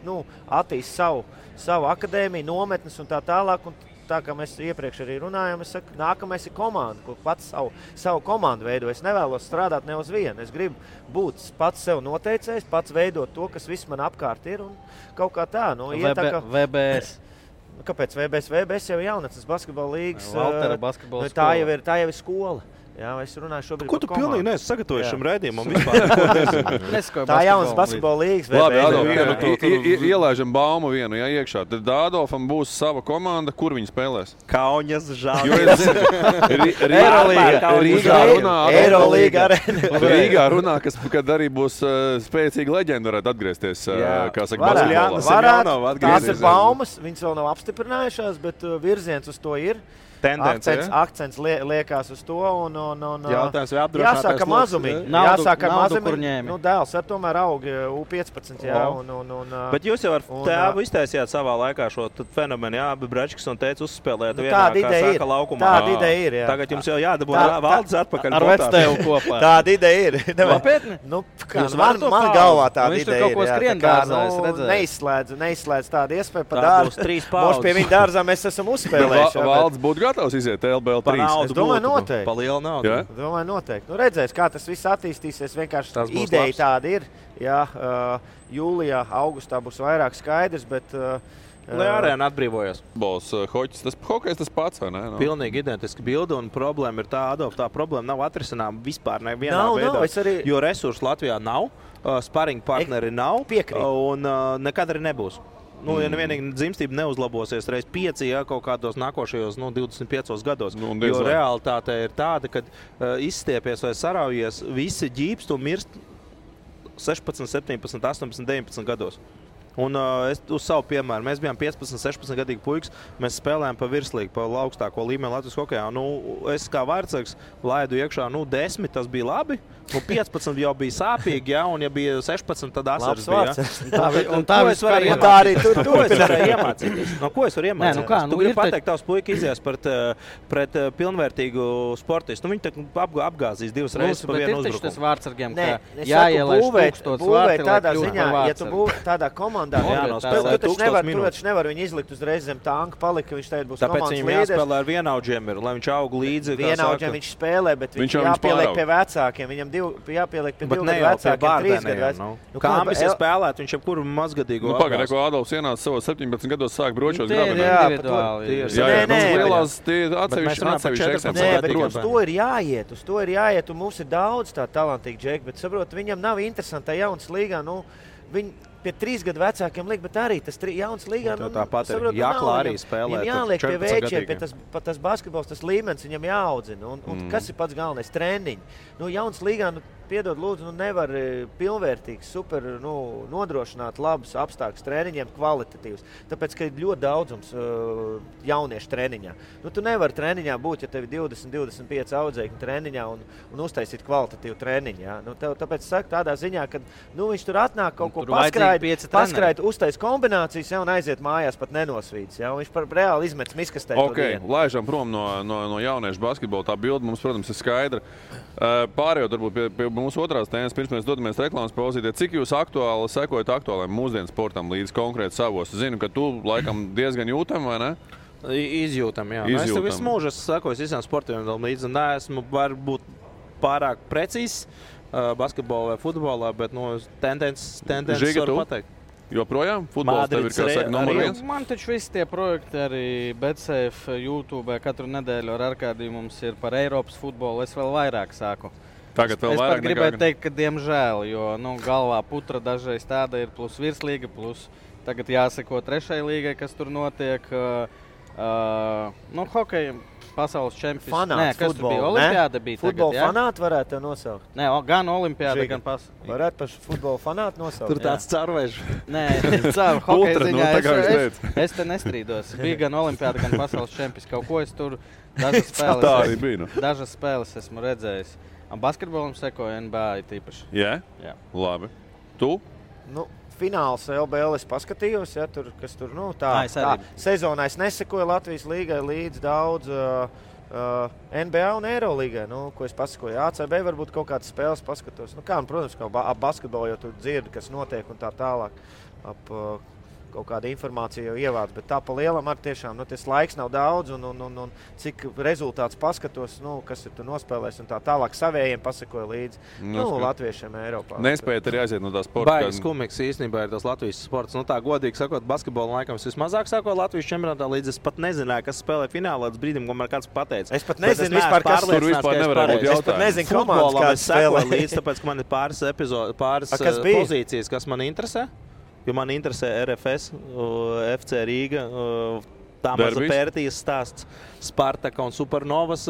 attīstu savu akadēmiju, nometnes un tā tālāk. Un tā kā mēs iepriekš arī runājām, es saku, nākamais ir komanda, kur pats savu komandu veido. Es nevēlos strādāt ne uz vienu. Es gribu būt pats sev noteicējs, pats veidot to, kas viss man apkārt ir. Un kaut kā tā. VBS. Kāpēc VBS? VBS jau ir jaunatnes basketbola līgas. Tā jau ir skola. Jā, es runāju šobrīd par komandu. Ko tu pilnīgi neesi sagatavojis šim raidījumam vispār? Tā jaunas basketbola līgas. Labi, Adolf, ielaižam baumu vienu iekšā. Tad Adolfam būs sava komanda, kur viņi spēlēs? Kauņas, Žāļas. Rīgā runā, kad arī būs spēcīga leģenda, varētu atgriezties. Kā saka, basketbolā. Tās ir baumas, viņas vēl nav apstiprinājušās, bet virziens uz to ir. Akcents liekās uz to. Jautājums, vai apdrošinātājs jāsāka mazumiņi. Jāsāka mazumiņi. Dēls ar tomēr aug U15. Bet jūs jau ar tēvu iztaisījāt savā laikā šo fenomenu. Jā, abi Bračkis un teica uzspēlēt vienā, kā saka, laukumā. Tāda ideja ir, jā. Tagad jums jau jādabū valdes atpakaļ. Ar vectēvu kopā. Tāda ideja ir. Nopietni? Man galvā tāda ideja ir. Viņš tur neizslēdz tādu iespēju pa dārzu. Moš pie viņa dārzā mēs esam uzspēlējuši. Valdes būtu gatavs iziet LBL 3. Es domāju, noteikti. Pa lielu naudu. Ja? Domāju, noteikti. Redzēs, kā tas viss attīstīsies. Vienkārši ideja tāda ir. Jā, jūlijā, augustā būs vairāk skaidrs, bet... Lai arēna atbrīvojas. Hoķis, hokejs tas pats, vai ne? No. Pilnīgi identiski bildi, un problēma ir tā, Adolf, tā problēma nav atrisināma vispār nevienā veidā. Jo resursu Latvijā nav, sparing partneri nav, un nekad arī nebūs. Ja nevienīgi dzimstība neuzlabosies reiz 5, kaut kādos nākošajos 25 gados. Jo realitāte ir tāda, ka izstiepies vai saraujies, visi ģīpst un mirst 16, 17, 18, 19 gados. Un es uz savu piemēru, mēs bijām 15, 16 gadīgi puikas, mēs spēlējām pa virslīgu, pa augstāko līmeni Latvijas hokejā. Es kā vārdsargs laidu iekšā, 10, tas bija labi, 15 jau bija sāpīgi, ja, un ja bija 16, tad asars bija. Tā es varēju iemācīties. Ko es varu iemācīties? Tu gribi pateikt, tavs puika izies pret pilnvērtīgu sportistu. Viņi apgāzīs 2 reizes pa vienu uzbrukumu. Bet ir taču tas vārdsargiem, ka jāielaiž 1000 vārti, lai kļūtu par vārdsargu. Ja tu būvē tādā komandā, tu taču nevar viņu izlikt uzreiz zem tanka, palika, ka viņš tagad būs komandas līderis. Tāpēc viņam jāspēlē ar vienaudžiem, lai viņš aug līdzi. Vienaudžiem viņš spēlē, bet viņš jāpieliek pie vecākiem. Viņam jāpieliek pie 2 gadu vecākiem, 3 gadu vecākiem. Kāmis ir spēlēt, viņš jebkuru mazgadīgu apgāz. Pagad, ko Adolfs ienāca savos 17 gados sāk bročos grabenē. Uz to ir jāiet, un mums ir daudz tā talantīgi džeki, bet saprot, viņam nav interesanti tā jaunas līgā, viņi pie 3 gadu vecākiem liek, bet arī tas jauns līgā. Tāpat ir jāklā arī spēlēt. Viņam jāliek pie veičiem, pie tas basketbols, tas līmenis viņam jāaudzina. Un kas ir pats galvenais? Treniņi. Jauns līgā, piedod lūdzu, nevar pilnvērtīgs, super nodrošināt labus apstākļus treniņiem, kvalitatīvus. Tāpēc, ka ir ļoti daudzums jauniešu treniņā. Tu nevari treniņā būt, ja tev ir 20-25 audzēkņi treniņā un uztaisīt kvalitatīvu treniņu. Ja? Tāpēc saku tādā ziņā, ka viņš tur atnāk kaut ko paskraid, uztais kombinācijas, ja, un aiziet mājās pat nenosvīdis. Ja? Viņš reāli izmetas miskastē. Laižam prom no jauniešu basketbola. Tā bilde mums, protams, ir skaidra. Pārējot varbūt pie mūsu otrās tēmas, pirms mēs dodamies reklāmas pauzītē. Cik jūs aktuāli sekojat aktuāliem mūsdienu sportam līdz konkrēti savos? Zinu, ka tu laikam diezgan jūtam, vai ne? Izjūtam, jā. Es tev visu mūžu sekoju visiem sportiem līdzi. Neesmu varbūt pārāk precīzs basketbolā vai futbolā, bet tendences varu pateikt. Joprojām? Futbols tev ir, kā saka, numur 1? Man taču visi tie projekti arī BetSafe, YouTube katru nedēļu ar Arkādiju mums ir par Eiropas futbolu. Es vēl vairāk sāku. Tagad vēl es vairāk pat gribētu teikt, ka diemžēl, jo galvā putra dažreiz tāda ir plus virslīga, plus Tagad jāseko 3. līgai, kas tur notiek. Hokeja pasaules čempions. Fanāts, kas futbola, tur bija? Olimpiāda bija futbola tagad, fanāti varētu tev nosaukt. Nē, gan olimpiāda, gan pasaules. Varētu par futbola fanāti nosaukt. Tur tāds carvežs. Nē, caur hokeja ziņā es te nestrīdos. Bija gan olimpiāda, gan pasaules čempions. Kaut ko es tur dažas spēles esmu redzējis. Basketbolam sekoja NBA tīpaši. Jā? Labi. Tu? Fināls LBL es paskatījos, kas tur, tā sezonā es nesekoju Latvijas līgai līdz daudz NBA un Eirolīgai, ko es pasakoju. ACB varbūt kaut kādas spēles paskatos. Protams, ap basketbolu jau tur dzirdi, kas notiek un tā tālāk. Kaut kāda informācija jau ievāc, bet tā pa lielam ar tiešām, tas laiks nav daudz un cik rezultāts paskatos, kas ir tu nospēlēs un tā tālāk savējiem pasakoja līdzi, latviešiem Eiropā. Nespējat arī aiziet no tā sporta. Baigas kumīgs īstenībā ir tas Latvijas sports. Tā godīgi sakot, basketbola laikam es vismazāk sakoju Latvijas čempionātā, līdz es pat nezināju, kas spēlē finālā līdz brīdim, ko man kāds pateica. Es pat nezinu vispār, kas tur vispār nevarētu būt jautājums. Es pat nezinu, komandas kāds spēlē līdz, tāpēc, ka man ir pāris pozīcijas, kas man interesē. Jo man interesē RFS, FC Rīga, Tāmaza Pērtijas stāsts, Spartaka un Supernovas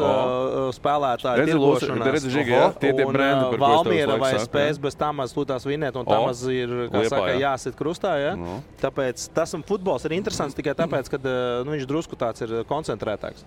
spēlētāji tirgošanās. Un Valmiera vai spēs bez Tāmazas lūtās vinēt, un Tāmaz ir, jāsit krustā. Ja? Tāpēc tas futbols ir interesants tikai tāpēc, ka viņš drusku tāds ir koncentrētāks.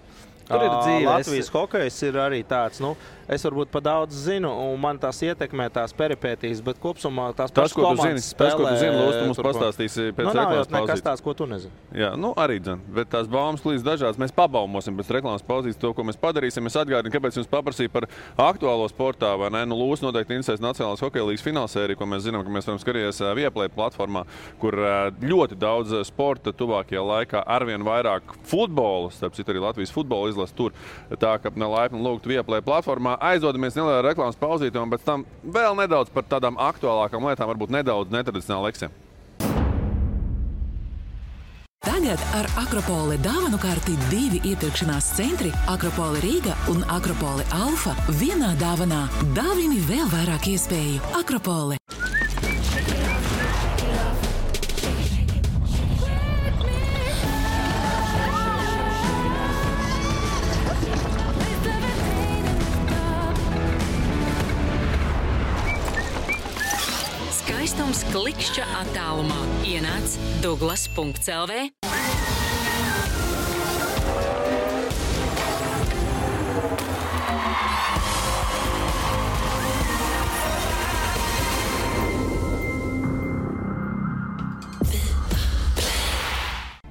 Tur ir dzīve. Latvijas hokejs ir arī tāds, es varbūt pa daudz zinu, un man tās ietekmē tās peripētīs, bet kopsumā tās pašas komandas spēlē. Tas, ko tu zini, Lūs, tu mums pastāstīsi pēc reklāmas pauzītes. Nekas tās, ko tu nezini. Jā, arī dzen, bet tās baumas līdz dažādas. Mēs pabaumosim pēc reklāmas pauzītes to, ko mēs padarīsim. Es atgādinu, kāpēc jums paprasīju par aktuālo sportā, vai ne? Lūs noteikti interesēs Nacionālās hokeja līgas finālsēriju, ko mēs zinām, ka mēs varam skatīties Viaplay platformā, kur ļoti daudz sporta tuvākajā laikā arvien vairāk futbola, starp citu arī Latvijas futbola izlas tur. Tā, ka laipni lūgtu Viaplay platformā. Aizdodamies nelielā reklāmas pauzītē un pēc tam vēl nedaudz par tādām aktuālākām lietām, varbūt nedaudz netradicionāli leksiem. Tagad ar Akropole dāvanu karti 2 iepirkšanās centri Akropole Rīga un Akropole Alfa vienā dāvanā. Dāvini vēl vairāk iespēju. Akropole. Skaistums klikšķa attālumā. Ienāc Douglas.lv.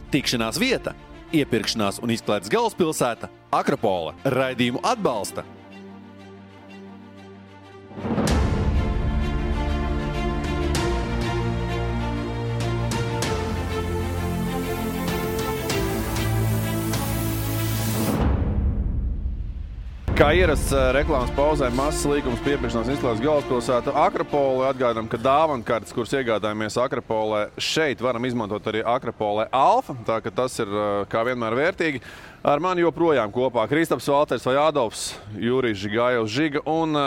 Tikšanās vieta, iepirkšanās un izklaides galvaspilsēta Akropole. Raidījumu atbalsta. Kā ierasts reklāmas pauzē, mazs līgums piepirkšanās izklaides galvaspilsētu Akropole. Atgādām, ka dāvankartes, kuras iegādājamies Akropolē, šeit varam izmantot arī Akropole Alfa, tā ka tas ir kā vienmēr vērtīgi. Ar mani joprojām kopā Kristaps Valters vai Adolfs, Jurijs Žigājovs Žiga un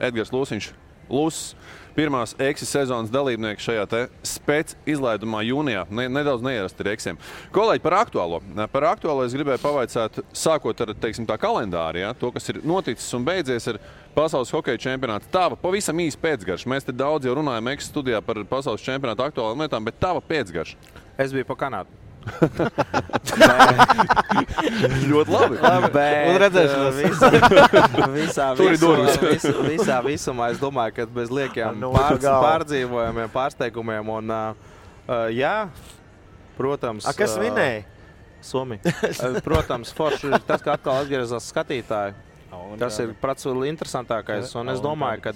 Edgars Lūsiņš Lūss. Pirmās Eksis sezonas dalībnieki šajā te spēc izlaidumā jūnijā. Nedaudz neierasti ir Eksiem. Kolēģi, par aktuālo. Par aktuālo es gribēju pavaicāt, sākot ar, teiksim, tā kalendāri, ja? To, kas ir noticis un beidzies, ir pasaules hokeja čempionāts. Tava pavisam īsi pēcgarša. Mēs te daudz jau runājam Eksis studijā par pasaules čempionātu aktuālām lietām, bet tava pēcgarša. Es biju pa Kanādu. Ļoti labi. Un visā visumā es domāju, ka bez liekiem pārdzīvojumiem, pārsteigumiem un jā, protams. Kas vinēja? Somija. Protams, forši ir tas, ka atkal atgriezās skatītāji. Tas ir prats interesantākais. Un es domāju, ka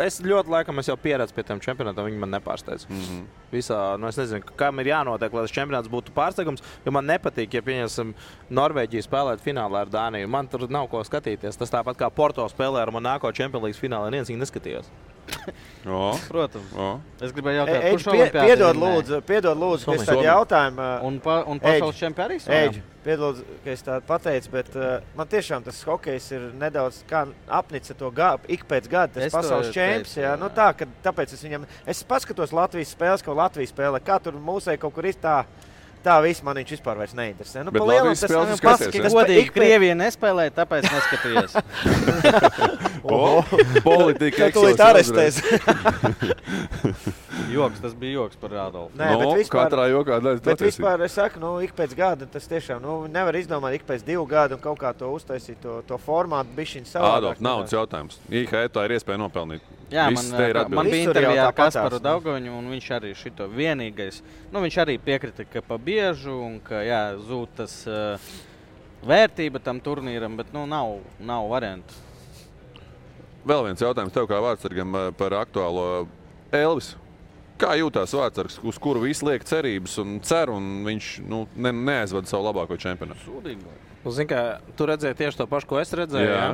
es ļoti laikam jau pieredzu pie tiem čempionātiem, viņi man nepārsteidz. Visā, es nezinu, kam ir jānotiek, lai tas čempionāts būtu pārsteigums, jo man nepatīk, ja pieņemsim Norvēģiju spēlēt finālā ar Dāniju. Man tur nav ko skatīties. Tas tāpat kā Porto spēlē ar Monako Champions League finālā, neviens viņu neskatījās. Protams. Es gribēju jautāt, Eģi, kurš olimpiāds piedod lūdzu, ka es tādu jautājumu. Un pasaules čempi arī Eģi, piedod, ka es tādu pateicu, bet man tiešām tas hokejs ir nedaudz kā apnica to ik pēc gada, tas pasaules čemps. Jā, nu tā, ka tāpēc es paskatos Latvijas spēles, ka Latvijas spēlē, kā tur mūsei kaut kur ir tā viss man viņš vispār vairs neinteresē. Nu, bet Latvijas spēles skaties, godīgi, Krievija nespēlē, tāpēc neskaties. Politika tūlīt arestēs. Joks, tas bija joks par Adolfu. Nē, bet vispār, katrā jokā daļas bet vispār es saku, ik pēc gada tas tiešām, nevar izdomāt ik pēc 2 gadu un kaut kā to uztaisīt, to formātu bišķiņu savādāk. Adolf, naudas jautājums. IHE tā ir iespēja nopelnīt. Jā, man bija intervijā ar Kasparu Daugaviņu, un viņš arī šito vienīgais, viņš arī piekrita, ka pa biežu un ka, zūd tas vērtība tam turnīram, bet, nav variantu. Vēl viens jautājums tev kā vārdsargam par aktuālo Elvis. Kā jūtās vārdsargs, uz kuru visi liek cerības un cer, un viņš neaizvada savu labāko čempionātu? Sūdīgi. Zini, kā tu redzēji tieši to pašu, ko es redzēju, jā?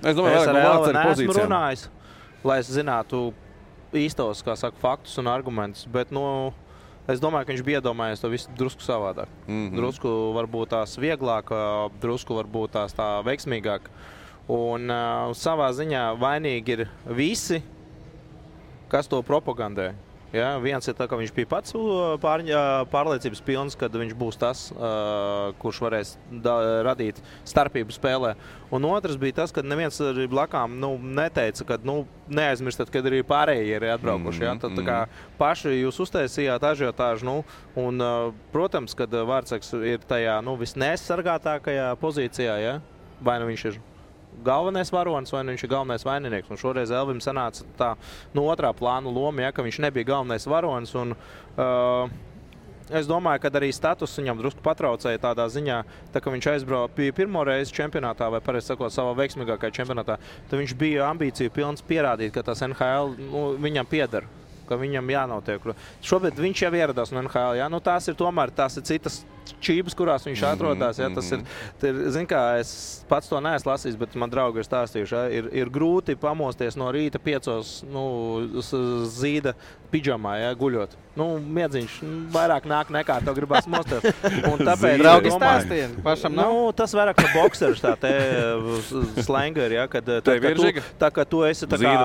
Es domāju, es ar Elvi neesmu runājis, lai es zinātu īstos, kā saka, faktus un argumentus, bet, es domāju, ka viņš bija iedomājies to visu drusku savādāk. Drusku varbūt tās vieglāk, drusku varbūt tās tā veiksmīgāk. Un savā ziņā vainīgi ir visi, kas to propagandē. Ja? Viens ir tā, ka viņš bija pats pārliecības pilns, kad viņš būs tas, kurš varēs radīt starpību spēlē. Un otrs bija tas, ka neviens arī blakām neteica, ka neaizmirstat, kad arī pārējie ir atbraukuši. Ja? Tad, tā kā paši jūs uztaisījāt ažiotāžu, un, protams, kad vārdsargs ir tajā visneaizsargātākajā pozīcijā, ja? Vai viņš ir galvenais varonis, vai viņš ir galvenais vaininieks. Un šoreiz Elvim sanāca tā otrā plāna loma, ja, ka viņš nebija galvenais varonis. Un, es domāju, ka arī status viņam drusku patraucēja tādā ziņā, tā, ka viņš aizbrauca pirmo reizi čempionātā, vai pareizi sakot, savā veiksmīgākajā čempionātā, tad viņš bija ambīciju pilns pierādīt, ka tas NHL viņam pieder, ka viņam jānotiek. Šobrīd viņš jau ieradās no NHL. Ja? Tās ir citas čības, kurās viņš atrodas. Ja? Tas ir, zin kā, es pats to neesmu lasījis, bet man draugi ir stāstījuši. Ja? Ir grūti pamosties no rīta 5 zīda pidžamā, ja? Guļot. Miedziņš vairāk nāk nekā tev gribās mosties. Un tāpēc draugi stāstīja. Pašam nav? Tas vairāk kā boksers, tā te slangeri, ja? Kad tu esi tā kā,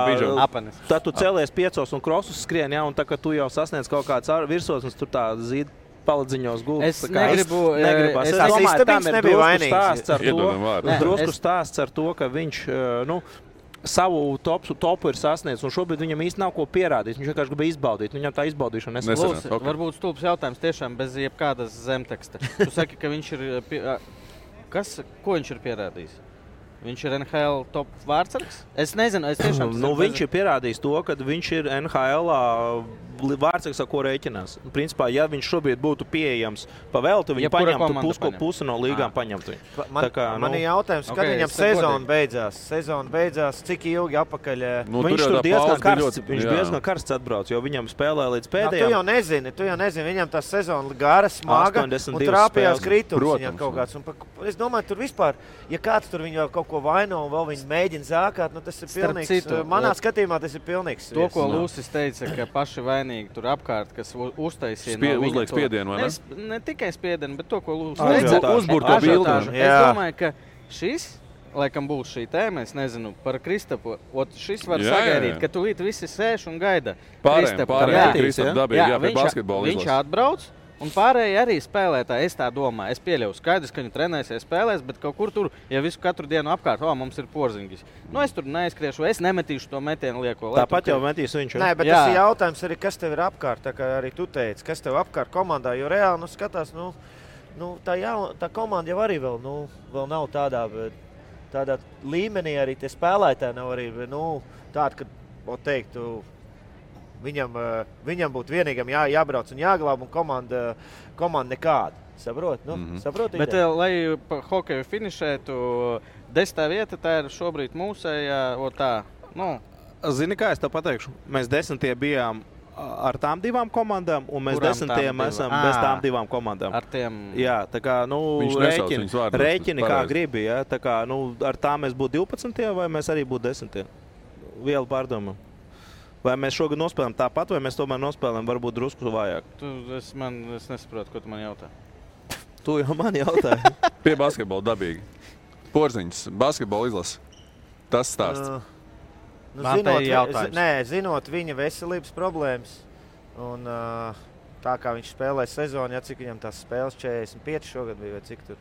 tad tu celies 5 un krosus skrien, ja? Un tā, kad tu jau sasniedz kaut kāds virsotnes, tur tā zīda paladziņos gultas. Es negribu. Es domāju, tam ir drusku stāsts ar to, ka viņš, savu topu ir sasniedz, un šobrīd viņam īsti nav ko pierādīt. Viņš vienkārši grib izbaudīt. Viņam tā izbaudīšana nesanāca. Okay. Varbūt stulbs jautājums tiešām bez jebkādas zemteksta. Tu saki, ka viņš ir... Ko viņš ir pierādījis? Viņš ir NHL top vārdsargs? Es nezinu, es tiešām... Viņš ir pierādījis to, ka viņš ir NHL vārdsargs, ar ko rēķinās. Principā, ja viņš šobrīd būtu pieejams pa velti, viņi paņemtu pusi no līgām paņemtu. Man ir jautājums, kad viņam sezona beidzās, cik ilgi apakaļ... Viņš tur diezgan karsts atbrauc, jo viņam spēlē līdz pēdējām. Tu jau nezini, viņam tā sezona gara, smaga un trāpījās kritums viņam kaut kāds. Es domāju, tur vispār, ja kāds tur viņu kaut ko vaino un vēl viņi mēģina zākāt, tas ir pilnīgs. Manā skatījumā tas ir pilnīgs. To, ko Lūsis teica, ka paši vainīgi tur apkārt, kas uztaisīja uzliek spiedienu, vai ne? Ne tikai spiedienu, bet to, ko Lūsis teica. Uzburto bildi. Es domāju, ka šis, laikam būs šī tēma, es nezinu, par Kristapu. Šis var sagaidīt, ka tūlīt visi sēž un gaida Kristapu. Kristapu dabīgi, pie basketbola izlases. Viņš atbrauc. Un pārējie arī spēlētāji, es tā domāju. Es pieļauju skaidrs, ka viņi trenēsies, spēlēs, bet kaut kur tur, ja katru dienu apkārt, mums ir Porziņģis. Es tur neizkriešu, es nemetīšu to metienu lieko. Tāpat jau metīs viņš. Nē, bet tas ir jautājums arī, kas tev ir apkārt, tā kā arī tu teici, kas tev apkārt komandā, jo reāli, skatās, tā komanda jau arī vēl nav tādā līmenī, arī tie spēlētāji nav arī, tādi, ka, teiktu, Viņam būtu vienīgam jābrauc un jāglāb, un komanda nekāda. Saprot? Saproti? Bet, lai pa hokeju finišētu, 10. vieta, tā ir šobrīd mūsējā, Zini, kā es tev pateikšu? Mēs 10. bijām ar tām 2 komandām, un mēs 10. esam bez tām 2 komandām. Ar tiem... Jā, tā kā, rēķini kā gribi, ja? Tā kā, ar tām mēs būtu 12. vai mēs arī būtu 10. vielu pārdomu. Vai mēs šogad nospēlējam tāpat, vai mēs tomēr nospēlējam varbūt drusku vājāk? Es nesaprotu, ko tu man jautā. Tu jau man jautāji. Pie basketbola dabīgi. Porziņš, basketbola izlasa. Tas stāsts. Zinot viņa veselības problēmas un tā kā viņš spēlē sezonu, cik viņam tās spēles 45 šogad bija, vai cik tur.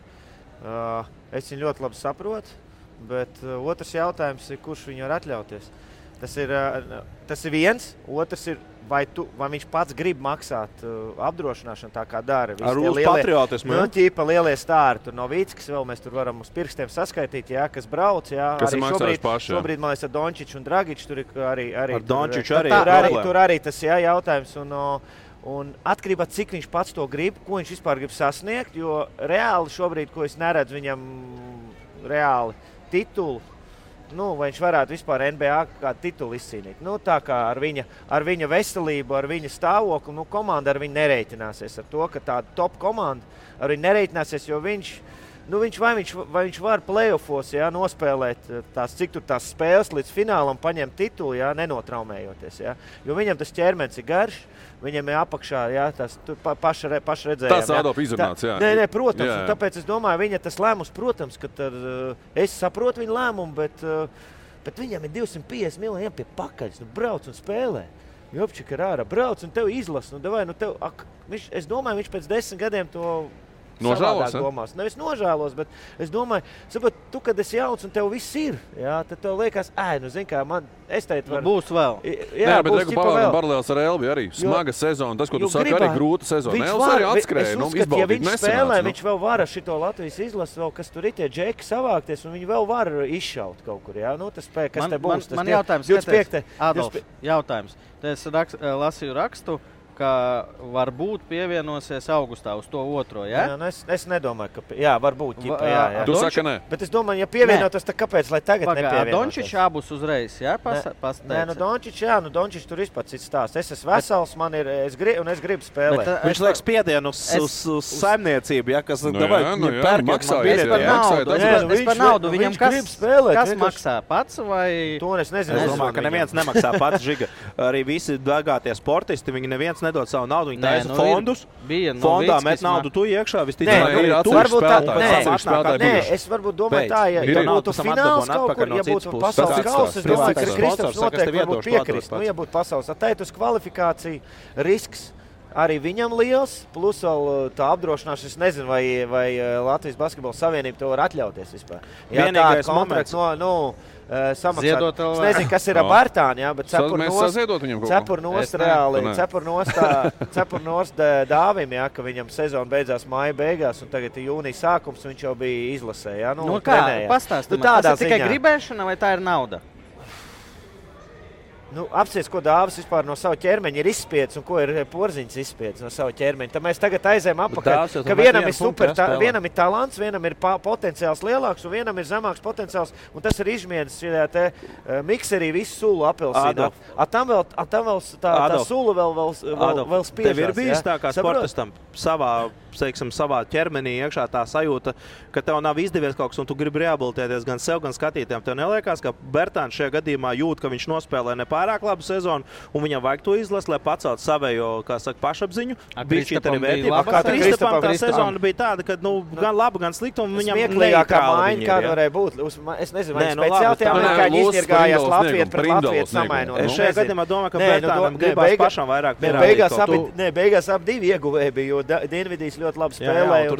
Es viņu ļoti labi saprotu, bet otrs jautājums ir, kurš viņu var atļauties. Tas ir viens, otrs ir, vai viņš pats grib maksāt apdrošināšanu tā kā dara. Ar uz patriotismu, ķīpa lielie stāri, tur no Vīckas vēl mēs tur varam uz pirkstiem saskaitīt, kas brauc, Kas arī šobrīd, man liekas, ar Dončiču un Dragiču, tur ir arī ar Dončiču arī tur arī tas jautājums, un atkarībā, cik viņš pats to grib, ko viņš vispār grib sasniegt, jo reāli šobrīd, ko es neredzu viņam reāli titulu, vai viņš varētu vispār NBA kādu titulu izcīnīt. Tā kā ar viņa veselību, ar viņa stāvokli, komanda ar viņu nereiķināsies ar to, ka tāda top komanda ar viņu nereiķināsies, jo vai viņš var playoffos nospēlēt cik tur tās spēles līdz finālam, paņemt titulu, nenotraumējoties. Jo viņam tas ķermenis ir garš, viņam ir apakšā, tas paši redzējām. Tas ādop izrunāts, Nē, protams, un tāpēc es domāju, viņa tas lēmums, protams, ka es saprotu viņa lēmumu, bet viņam ir 250 miljoni pie pakaļas, brauc un spēlē. Jopčik ir ārā, brauc un tev izlas, es domāju, viņš pēc 10 gadiem to nožēlos, Nevis nožēlos, bet es domāju, saprot, tu, kad esi jauns un tev viss ir, tad tev liekas, es teicu, būs vēl. Bet reku paralēls ar Elvi arī. Smaga sezona, tas, ko tu saki, arī grūta sezona. Elvis arī atskrēja, ja viņš spēlē, viņš vēl var ar šito Latvijas izlasu, vēl, kas tur ir tie džeki savākties, un viņi vēl var izšaut kaut kur, tas spēj, kas te būs. Man jautājums, Adolf, jautājums. Es lasīju rakstu, ka varbūt pievienosies augustā uz to otro, es nedomāju, ka varbūt. Tu saki, nē. Bet es domāju, ja pievienotos, tad kāpēc, lai tagad nepievienotos? Dončičs abus uzreiz, Dončičs tur vispār cits stāsts. Es esmu vesels, es gribu spēlēt. Viņš liek spiedienu uz saimniecību, kas Es par naudu. Viņam kas maksā pats vai? To es nezinu. Es domāju, ka neviens nemaksā pats, Žiga. Arī visi dārgātie sportisti, viņi neviens nedod savu naudu, viņi taisa fondus. Fondā met naudu tu iekšā, es varbūt domāju tā, ja būtu fināls kaut kur, ja būtu pasaules kausa, es domāju, ka Kristaps noteikti varbūt piekrist. Ja būtu pasaules atteitus kvalifikācija, risks arī viņam liels, plus vēl tā apdrošināšana, es nezinu, vai Latvijas basketbola savienība to var atļauties vispār. Vienīgais moments. Samaksāt. Es nezinu, kas ir ar Bērtāni, bet cepur nost Dāvim, ka viņam sezona beidzās māja beigās, un tagad ir jūnija sākums, viņš jau bija izlasē. Pastāsti man, tas ir tikai gribēšana vai tā ir nauda? Apsies, ko Dāvis vispār no sava ķermeņa ir izspiedis un ko ir Porziņš izspiedis no sava ķermeņa. Tad mēs tagad aizējam apakaļ, ka vienam ir vienam ir talants, vienam ir potenciāls lielāks un vienam ir zemāks potenciāls. Un tas ir izmiedis šajā te mikserī visu sulu apelsīnu. Tam vēl tā sula vēl spiežās. Tev ir bijis tā kā sportistam savā ķermenī iekšā tā sajūta, ka tev nav izdevies kaut kas un tu gribi rehabilitēties gan sev, gan skatītājiem. Tev neliekās, ka Bērtāns šajā gadījumā jūt, ka viņš nospēlē nepārāk labu sezonu un viņam vajag to izlast, lai pacelt savējo, kā saka, pašapziņu. Kristapam tā sezona bija tāda, ka gan laba, gan slikta un viņam neitrāla viņa ir. Varēja būt. Es nezinu, vai speciāli tie amerikāņi izņirgājās Latviju pret Latviju samainot. Es šajā gadījumā domāju, ka Bērtānam gribās pašam vairāk pierādīt. Beigās abi ieguvēji bija, jo Dienvidīs ļoti labi spēlēja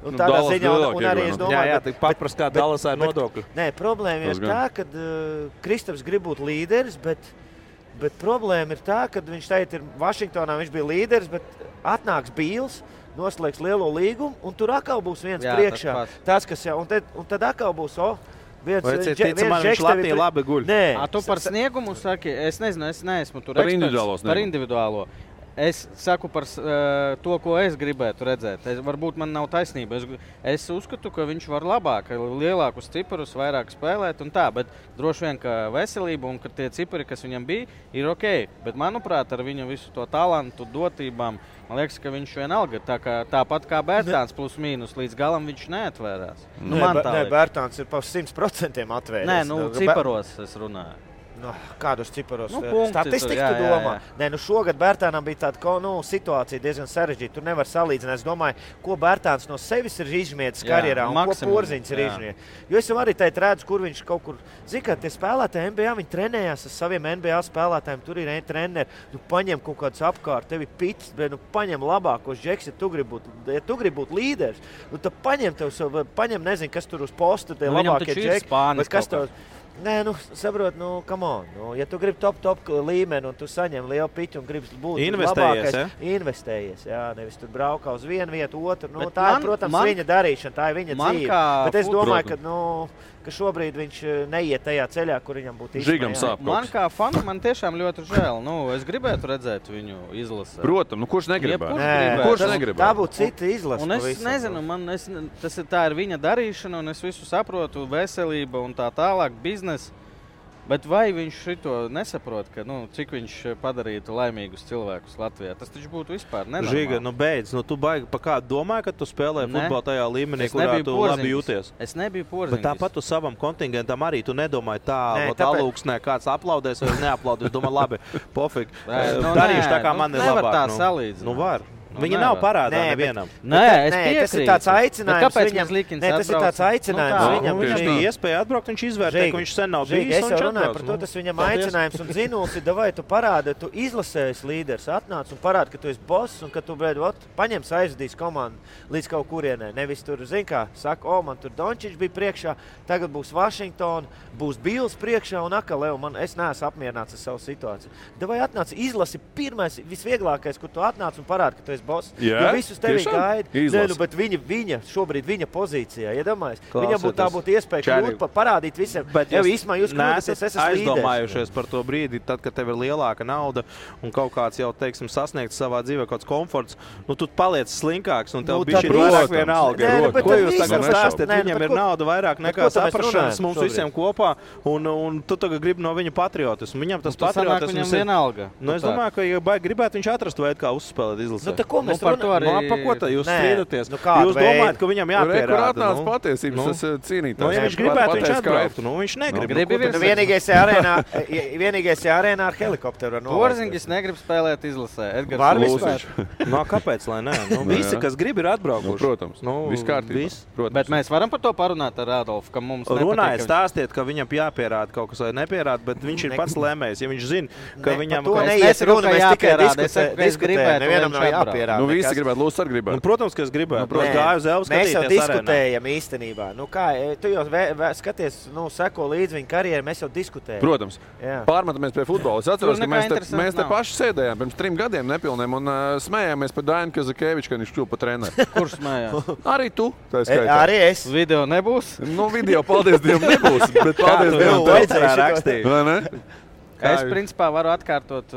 un tādā ziņā, un arī es domāju, patprast kā Dallasā ir nodokļi. Nē, problēma ir tā, ka Kristaps grib būt līderis, bet problēma ir tā, ka viņš teikt ir Vašingtonā, viņš bija līderis, bet atnāks Bīls, noslēgs lielo līgumu, un tur atkal būs viens priekšā. Tas, kas jau, un tad atkal būs, viņš Latvija labi guļ. Tu par sniegumu saki, es nezinu, es neesmu tur eksperts. Par individuālo. Es saku par to, ko es gribētu redzēt. Varbūt man nav taisnība. Es uzskatu, ka viņš var labāk, lielākus ciparus, vairāk spēlēt un tā, bet droši vien, ka veselība un ka tie cipari, kas viņam bija, ir ok. Bet, manuprāt, ar viņu visu to talantu, dotībām, man liekas, ka viņš vienalga tāpat kā Bērtāns plus mīnus, līdz galam viņš neatvērās. Nē, Bērtāns ir pa 100% atvēries. Nē, ciparos es runāju. Kādos ciparos statistiku tu domā? Nē, šogad Bērtānam bija tāda situācija diezgan sarežģīta. Tur nevar salīdzināt. Es domāju, ko Bērtāns no sevis ir izmietis karjerā un ko Porziņš ir izmietis. Jo es jau arī teikt redzu, kur viņš kaut kur... Zini, kā tie spēlētāji NBA, viņi trenējās ar saviem NBA spēlētājiem. Tur ir treneri. Tu paņem kaut kādus apkārt, tevi pits, bet paņem labākos džeks, ja tu gribi būt līderis. Tad paņem, nezinu, kas tur uz posta, tie labākie džeki. Nē, saprot, come on. Ja tu gribi top līmeni un tu saņem lielu piķu un gribi būt labākais, investējies, jā, nevis tur braukā uz vienu vietu, otru. Tā ir, protams, viņa darīšana, tā ir viņa dzīve. Bet es domāju, ka šobrīd viņš neiet tajā ceļā, kur viņam būtu izmēja. Man kā fanu, man tiešām ļoti žēl. Es gribētu redzēt viņu izlasi. Protams, kurš negribētu? Kurš negribētu? Tā būtu cita izlase. Un es nezinu, tā ir viņa darīšana, un es visu saprotu, veselība un tā tālāk, biznes. Bet vai viņš šito nesaprot, ka, cik viņš padarītu laimīgus cilvēkus Latvijā? Tas taču būtu vispār nenormāli. Žiga, beidz. Tu baigi pa kādu domāji, ka tu spēlēji futbolu tajā līmenī, kurā tu labi jūties? Es nebiju Porziņš. Bet tāpat tu savam kontingentam arī tu nedomāji alūksnē, kāds aplaudēs vai neaplaudēs. Domā, labi, pofīgi. Darīšu tā, kā man ir labāk. Nevar tā salīdzināt. Var. Viņa nav parādā nevienam. Tas ir tāds aicinājums. Kāpēc viņam Likins atbrauc? Tas ir tāds aicinājums. Viņam bija iespēja atbraukt, viņš izvērtēja, ka viņš sen nav bijis. Es jau runāju par to, tas viņam aicinājums un zinuls ir, vai tu parādi, tu izlasējies līderis, atnāc un parādi, ka tu esi boss un ka tu, paņems aizvedīs komandu līdz kaut kurienē. Nevis tur, zin kā, saka, man tur Dončiņš bija priekšā, tagad būs Vašingtona, būs Bils priekšā un atkal, es neesmu apmierināts ar savu situāciju. Vai atnāc, izlasi pirmais, visvieglākais, kur tu atnāc un parādi, ka tu esi boss. Jo visus tevi gaida. Bet viņa šobrīd viņa pozīcijā, iedomājies. Viņam būtu iespēja kļūt, parādīt visiem. Bet jūs neesat aizdomājušies par to brīdi, tad, kad tev ir lielāka nauda un kaut kāds jau, teiksim, sasniegts savā dzīvē kāds komforts, tu paliec slinkāks un tev bišķi ir vairāk viena alga. Ko jūs tagad stāstāt? Viņam ir nauda vairāk nekā saprašanas mums visiem kopā un tu tagad gribi no viņa patriotismu. Viņam tas patriotisms ir vienalga. Es domāju, ka, ja gribētu viņš atrast veidu, kā uzspēlēt izlasē. Par to arī... Pa ko tā jūs strīdaties? Jūs domājat, ka viņam jāpierāda? Kur atnāc patiesības, tas cīnītājs. Ja viņš gribētu, viņš atbrauktu. Viņš negrib. Vienīgais arēnā ar helikopteru. Porziņš negrib spēlēt izlasē. Var vispār? Kāpēc, lai nē? Visi, kas grib, ir atbraukuši. Protams. Viss kārtībā. Bet mēs varam par to parunāt ar Adolfu, ka mums runājiet, stāstiet, ka viņam jāpierāda kaut kas vai nepierāda, bet viņš ir pats lēmējs. Ja viņš zina, ka viņam... Visi gribētu, Lūdzu, arī gribētu. Protams, ka es gribētu. Mēs jau diskutējam īstenībā. Tu jau skaties, seko līdz viņa karjerai, mēs jau diskutējam. Protams. Pārmetamies pie futbola. Es atceros, ka mēs te paši sēdējām pirms 3 gadiem nepilniem un smējāmies par Dainu Kazakēviču, kad viņš kļuva par treneri. Kurš smējās? Arī tu. Arī es. Video nebūs? Video, paldies Dievam, nebūs. Bet paldies Dievam, vajadzēja rakstīt. Es principā varu atkārtot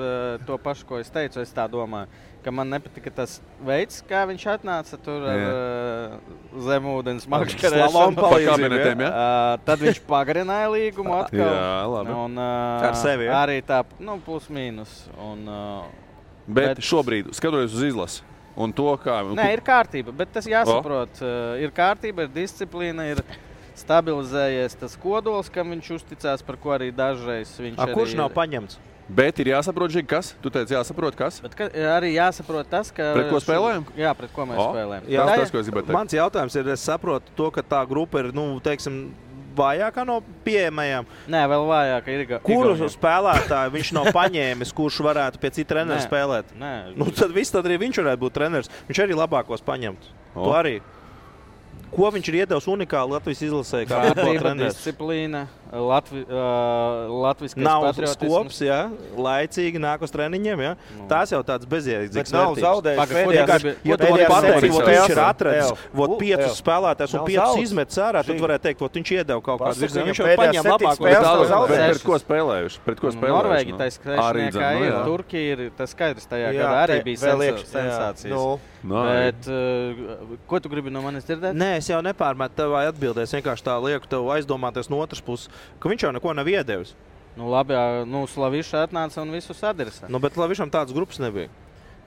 to pašu, ko es teicu. Es tā domāju, ka man nepatika tas veids, kā viņš atnāca tur ar zemūdens makšķerēšanu. Tad viņš pagarināja līgumu atkal. Jā, labi. Ar sevi, ja? Arī tā, plus mīnus. Bet šobrīd, skatoties uz izlasi, un to, kā... Nē, ir kārtība, bet tas jāsaprot. Ir kārtība, ir disciplīna, ir... stabilizējies tas kodols, kam viņš uzticās, par ko arī dažreiz viņš arī... Kurš nav paņemts? Bet ir jāsaprot, kas? Tu teici, jāsaprot, kas? Bet arī jāsaprot tas, ka... Pret ko spēlējam? Jā, pret ko mēs spēlējam. Tas, ko es gribētu teikt. Mans jautājums ir, es saprotu to, ka tā grupa ir, vājākā no pieejamajām. Nē, vēl vājāka ir. Kuru spēlētāju viņš nav paņēmis, kurš varētu pie cita trenera spēlēt? Nē. Tad arī viņš varētu būt treneris. Viņš arī labākos paņemt. To arī. Ko viņš ir iedevis unikāli Latvijas izlasē? Kārtība, disciplīna, latviskais patriotisms. Nav skops, jā, laicīgi nāk uz treniņiem, jā. Tās jau tāds bezjēdzīgs vērtības. Nav zaudējis. Ja tu vari pateikt, ka viņš ir atradis 5 spēlētājus un 5 izmetis ārā, tad varētu teikt, ka viņš iedeva kaut kādu virzienu. Viņš jau paņem labāko. Pret ko spēlējuši? Norvēģi taisa krēšniekā ir, Turkija ir, tas skaidrs tajā gadā arī bija sensācijas. Bet ko tu gribi no manis dzirdēt? Nē, es jau nepārmetu tev atbildēs, vienkārši tā lieku tev aizdomāties no otras puses, ka viņš jau neko nav iedevis. Labi, Slaviša atnāca un visu sadresa. Bet Slavišam tādas grupas nebija.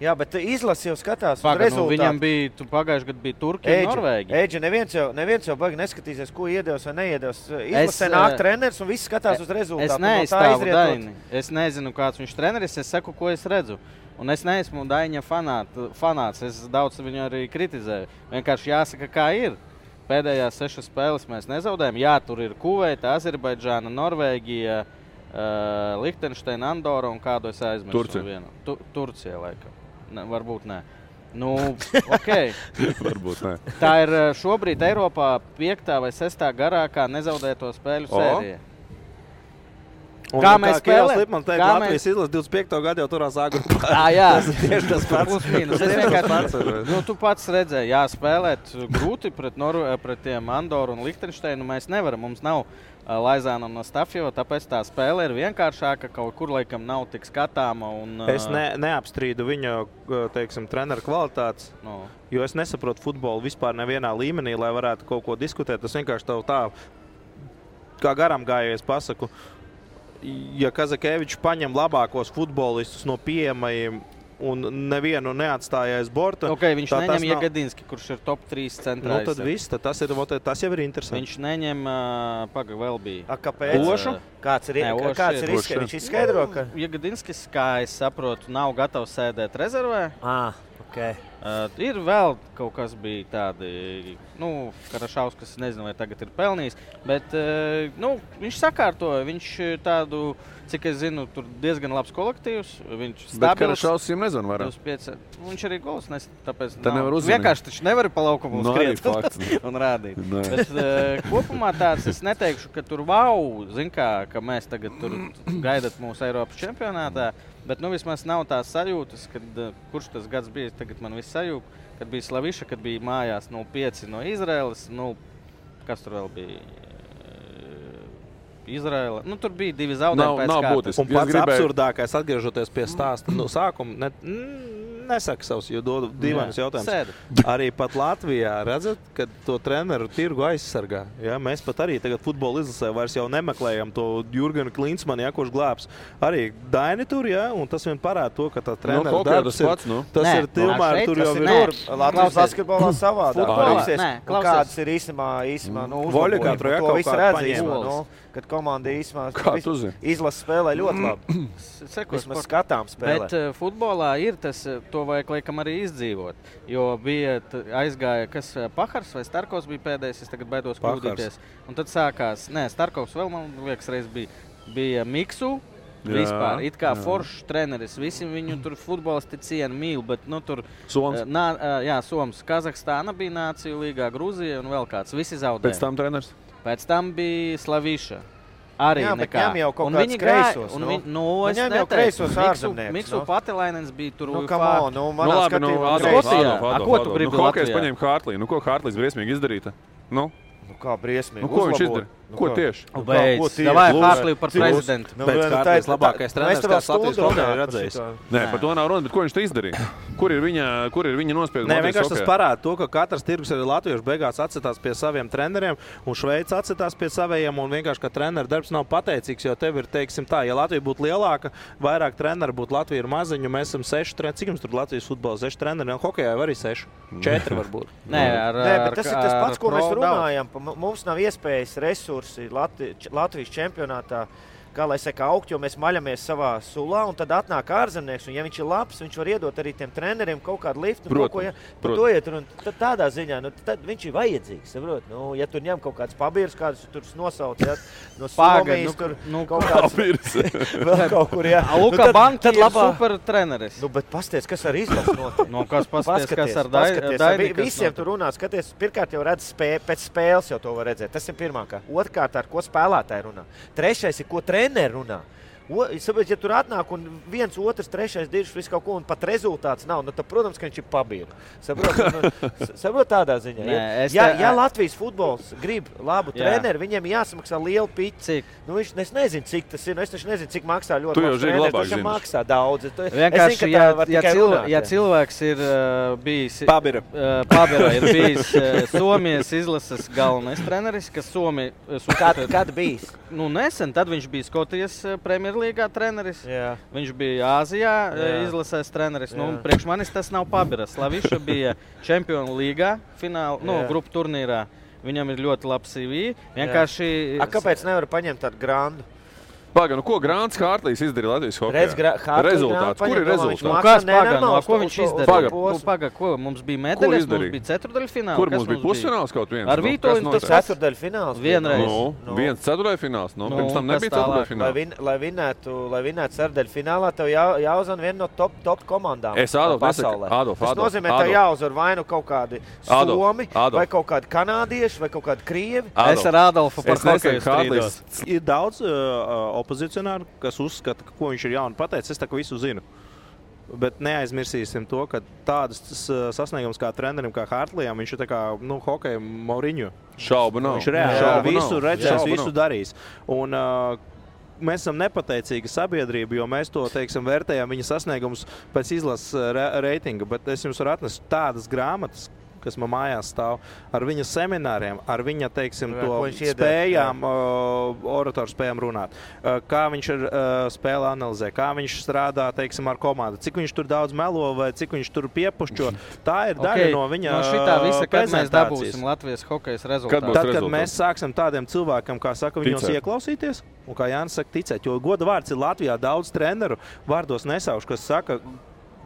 Jā, bet izlasi jau skatās uz rezultātu. Viņam bija, pagājuši gadu bija Turkija un Norvēģija. Eģi, neviens jau baigi neskatīsies, ko iedevis vai neiedevis. Izlasē nāk treneris un viss skatās uz rezultātu. Es neizstāvu Daini. Es nezinu, kāds viņš treneris, es saku, ko es redzu. Un es neesmu Daiņa fanāts, es daudz viņu arī kritizēju. Vienkārši jāsaka, kā ir. Pēdējās 6 spēles mēs nezaudējam. Jā, tur ir Kuveita, Azerbaidžāna, Norvēģija, Lihtenšteina, Andora un kādu es aizmirsu. Turcija, laikam. Ne, varbūt nē. Nu, okay. Varbūt nē. Tā ir šobrīd Eiropā 5. vai 6. garākā nezaudēto spēļu sērija. Kā mēs spēlējam? Man teikt, Latvijas izlase 25. gadu jau turās agrupā. Jā. Tas ir tieši tas pats. Plus mīnus. Tu pats redzēji, spēlēt grūti pret tiem Andoru un Lihtenšteinu mēs nevaram. Mums nav Laizāna un Stafjeva, tāpēc tā spēle ir vienkāršāka, kaut kur laikam nav tik skatāma. Es neapstrīdu viņa, teiksim, treneru kvalitātes, jo es nesaprotu futbolu vispār nevienā līmenī, lai varētu kaut ko diskutēt. Tas vienkārši tā, kā garām gājies pasaku, ja Kazakevičs paņem labākos futbolistus no pieejamajiem un nevienu neatstāja aiz borta. Viņš neņem Jegadinski, kurš ir top 3 centrā. Nu, tad viss, tas jau ir interesanti. Viņš neņem, vēl bija. Kāpēc? Ošu? Kāds ir izskaidro? Viņš izskaidro, ka Jegadinskis, kā es saprotu, nav gatavs sēdēt rezervē. Okay. Ir vēl kaut kas bija tādi, Karašauskas, nezinu, vai tagad ir pelnījis, bet viņš sakārtoja, viņš tādu, cik es zinu, tur diezgan labs kolektīvs, viņš stabils. Bet Karašauskas jums nezinu vairāk. Viņš arī gols nes, tāpēc vienkārši taču nevari pa laukumu skriet un rādīt. Bet kopumā tāds, es neteikšu, ka tur zin kā, ka mēs tagad tur gaidat mūsu Eiropas čempionātā, bet vismaz nav tās sajūtas, kad kurš tas gads bija, tagad man viss sajūta, kad bija Slaviša, kad bija mājās 0-5 no Izraēlas, kas tur vēl bija? Izraēla. Tur bija 2 zaudējumi pēc kārtas. Un pats absurdākais, atgriežoties pie stāsta sākuma, nesaka savus, jo dodu dīvainus jautājumus. Arī pat Latvijā redzat, ka to treneru tirgu aizsargā. Ja? Mēs pat arī tagad futbola izlasē vairs jau nemeklējam to Jurgenu Klinsmanu, kurš glābs. Arī Daini tur, un tas vien parāda to, ka tā treneru darbs ir tilmēr, tur jau ir. Latvijas basketbolā savādāk. Kādas ir īsumā Voļikā to visu redz īsumā. Kad komanda izlasa spēlē ļoti labi. Vismaz skatām spēlē. Bet futbolā ir tas, to vajag laikam arī izdzīvot. Jo bija aizgāja, kas Pahars vai Starkovs bija pēdējais, es tagad baidos kļūdīties. Un tad sākās, Starkovs vēl, man liekas, reiz bija Miksu. Vispār, it kā foršs treneris, visi viņu tur futbolisti cienu mīl, bet tur Soms. Soms, Kazahstāna bija Nāciju līgā, Grūzija un vēl kāds, visi zaudēja. Pēc tam treneris? Pēc tam bija Slaviša. Arī nekā. Viņam jau kaut kāds kreisos. Viņam jau kreisos ārzemnieks. Miksu Patilainens bija tur. Manā skatījumā. Ko tu gribi Latvijā? Hokejs paņēma Hārtlī. Ko Hārtlīs briesmīgi izdarīta? Kā briesmīgi. Ko viņš izdara? Ko tieši? Davai Hārtlī par prezidentu. Tā ir labākais treneris, kāds Latvijas valdē ir redzējis. Nē, par to nav runa, bet ko viņš te izdarīja? Kur ir viņa nospieduma? Nē, vienkārši tas parāda to, ka katrs tirgus arī latviešu beigās atcitās pie saviem treneriem, un Šveica atcitās pie savējiem, un vienkārši, ka treneru darbs nav pateicīgs, jo tev ir, teiksim tā, ja Latvija būtu lielāka, vairāk treneru būtu, Latvija ir maziņu, mēs esam 6 treneri. Cik jums tur Latvijas futbola 6 treneri? Hokejā arī 6. 4 varbūt. Nē, bet tas ir tas pats, ko mēs runājam. Mums nav iespējas resursi Latvijas čempionātā, kā lai saka, augt, jo mēs maļamies savā sulā, un tad atnāk ārzemnieks, un ja viņš ir labs, viņš var iedot arī tiem treneriem kaut kādu liftu, par to iet, un tādā ziņā, tad viņš ir vajadzīgs, saprot, ja tur ņem kaut kāds pabīrs, kādus tur nosauc, no Somijas, tur kaut kāds vēl kaut kur, Luka Banki ir super treneris. Bet pasties, kas ar izlasu notiek? Kas pasties, kas ar Daini? Visiem tur runā, skaties, pirmkārt jau redz pēc spēles jau to var redzēt, tas ir pirmākā. Otrkārt, ar ko spēlētāji runā. Trešais ir, ko treneri runā. Ja tur atnāk un 1, 2, 3 dirž visu kaut ko un pat rezultāts nav, tad, protams, ka viņš ir pabīru. Saprot tādā ziņā. Ja Latvijas futbols grib labu treneri, viņiem jāsamaksā lielu piķi. Es nezinu, cik tas ir. Es taču nezinu, cik maksā ļoti labs treneris. Tas maksā daudz. Vienkārši, ja cilvēks ir bijis Pabira ir bijis Somijas izlases galvenais treneris, kas Somija... Kad bijis? Nesen, tad viņš bija Skotijas Premier Superlīgā treneris. Jā. Viņš bija Āzijā izlasēs treneris. Nu, priekš manis tas nav pabiras. Slaviša bija Čempionu līgā fināla, grupu turnīrā. Viņam ir ļoti labs CV. Vienkārši... Kāpēc nevar paņemt tādu grandu? Pagaid, ko Grāns Hārtlīs izdarīja Latvijas hokejā? Rezultāts. Kur ir rezultāts? Kas pagaid, ko viņš izdarīja? Pagaid, ko mums bija medaļas, mums bija ceturdaļfināls. Kur mums bija pusfināls kaut viens? Ar Vītoļu tas ceturdaļfināls. Vienreiz. Viens ceturdaļfināls. Pirms tam nebija ceturdaļfināls. Lai vinētu ceturdaļfinālā, tev jāuzvar viena no top komandām pasaulē. Tas nozīmē, tev jāuzvar vai nu kaut kādi Somi, vai kaut kādi kanādieši, vai kaut kādi krievi. Es ar Adolfu par hokeju strīdos. Ir daudz opozicionāri, kas uzskata, ko viņš ir jauni pateicis. Es tā, ka visu zinu. Bet neaizmirsīsim to, ka tādas sasniegums kā trenerim, kā Hārtlijam, viņš ir tā kā, hokeja Mauriņu. Šaubu nav. Viņš reāli visu redzēs, visu darīs. Un mēs esam nepateicīga sabiedrība, jo mēs to, vērtējam viņa sasniegumus pēc izlases reitinga. Bet es jums varu atnest tādas grāmatas, kas man mājās stāv, ar viņa semināriem, ar viņa, spējām, oratoru spējām runāt. Kā viņš spēle analizē, kā viņš strādā, ar komandu, cik viņš tur daudz melo vai cik viņš tur piepušķo. Tā ir daļa no viņa no šitā visa, kad mēs dabūsim Latvijas hokejas rezultātu. Tad, kad mēs sāksim tādiem cilvēkiem, kā saka, viņos ieklausīties, un kā Jānis saka, ticēt, jo goda vārds ir Latvijā daudz treneru, vārdos nesaušu, kas saka,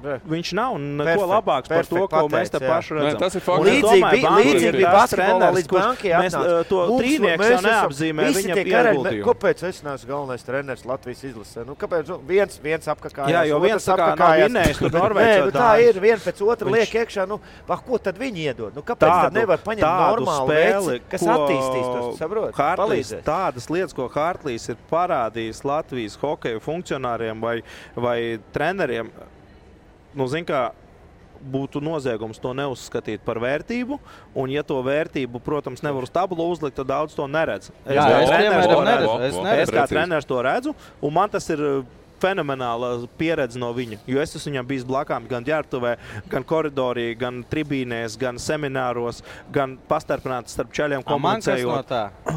viņš nav neko labāks par to, ko mēs te paši redzam. Tas ir fakts. Līdzīgi bija basketbolā līdz bankai atnāca. To trīnieks jau neapzīmē viņa ieguldījumu. Kāpēc es neesmu galvenais treneris Latvijas izlasē? Kāpēc viens apkakājās? Jā, jo viens tā kā nav vinnējis tur Norvēģijā. Tā ir, vien pēc otra liek iekšā. Ko tad viņi iedod? Kāpēc tad nevar paņemt normālu veici, kas attīstīs to, saprot? Palīdzēs. Tādas lietas, ko Hārtlīs ir parādījis Latvijas hokeju funkcionāriem vai treneriem, zin kā, būtu noziegums to neuzskatīt par vērtību, un ja to vērtību, protams, nevar uz tabulu uzlikt, tad daudz to neredz. Es kā treneris to redzu, un man tas ir fenomenāla pieredze no viņa, jo es esmu viņam bijis blakām gan ģērbtuvē, gan koridorī, gan tribīnēs, gan semināros, gan pastarpināts starp čaļiem komunicējot.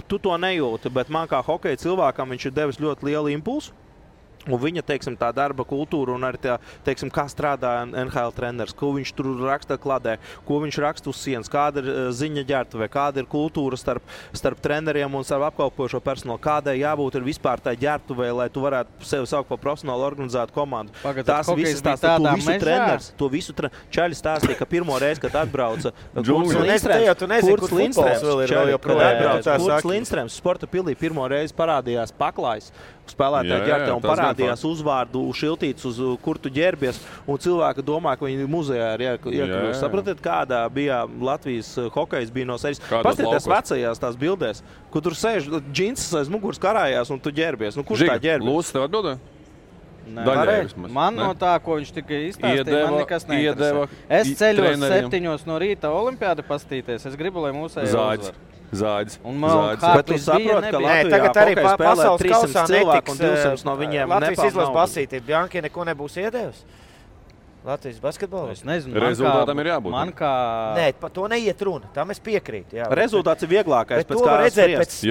Tu to nejūti, bet man kā hokeja cilvēkam viņš ir devis ļoti lielu impulsu. Un viņa, tā darba kultūra un arī kā strādā NHL treneris, ko viņš tur raksta kladē, ko viņš raksta uz sienas, kāda ir ziņa ģērbtuvē, kāda ir kultūra starp treneriem un starp apkalpojošo personālu, kādai jābūt ir vispār tā ģērbtuvē, lai tu varētu sevi saukt par profesionālu organizētu komandu. Tās visas tās, to visu čaļi stāstīja, ka pirmo reizi, kad atbrauca Kurts Lindstrēms sporta pilī, pirmo reizi parādījās paklājs spēlētāju ģērbtuvē un parādījās uzvārdu šiltīts, uz kur tu ģērbies, un cilvēki domā, ka viņi muzejā ir iekļūst. Sapratiet, kādā bija Latvijas hokejs bija no sejas. Pastieties vecajās tās bildēs, kur tur sēž džinsas aiz muguras karājās, un tu ģērbies. Kurš tā ģērbies? Lūdzu, tev atbildē? Man no tā, ko viņš tikai izstāstīja, man nekas neinteresē. Es ceļos 7 no rīta olimpiādi pastīties. Es gribu, lai mūsēji uzvar. Zāģis. Bet tu saproti, ka Latvijā tagad arī pasaules kausā cilvēku un 200 no viņiem Latvijas izlases basītī. Bjanki neko nebūs iedevis? Latvijas basketbolā? Es nezinu. Rezultātam ir jābūt. Nē, par to neiet runa. Tam es piekrītu. Rezultāts ir vieglākais pēc kā spriest.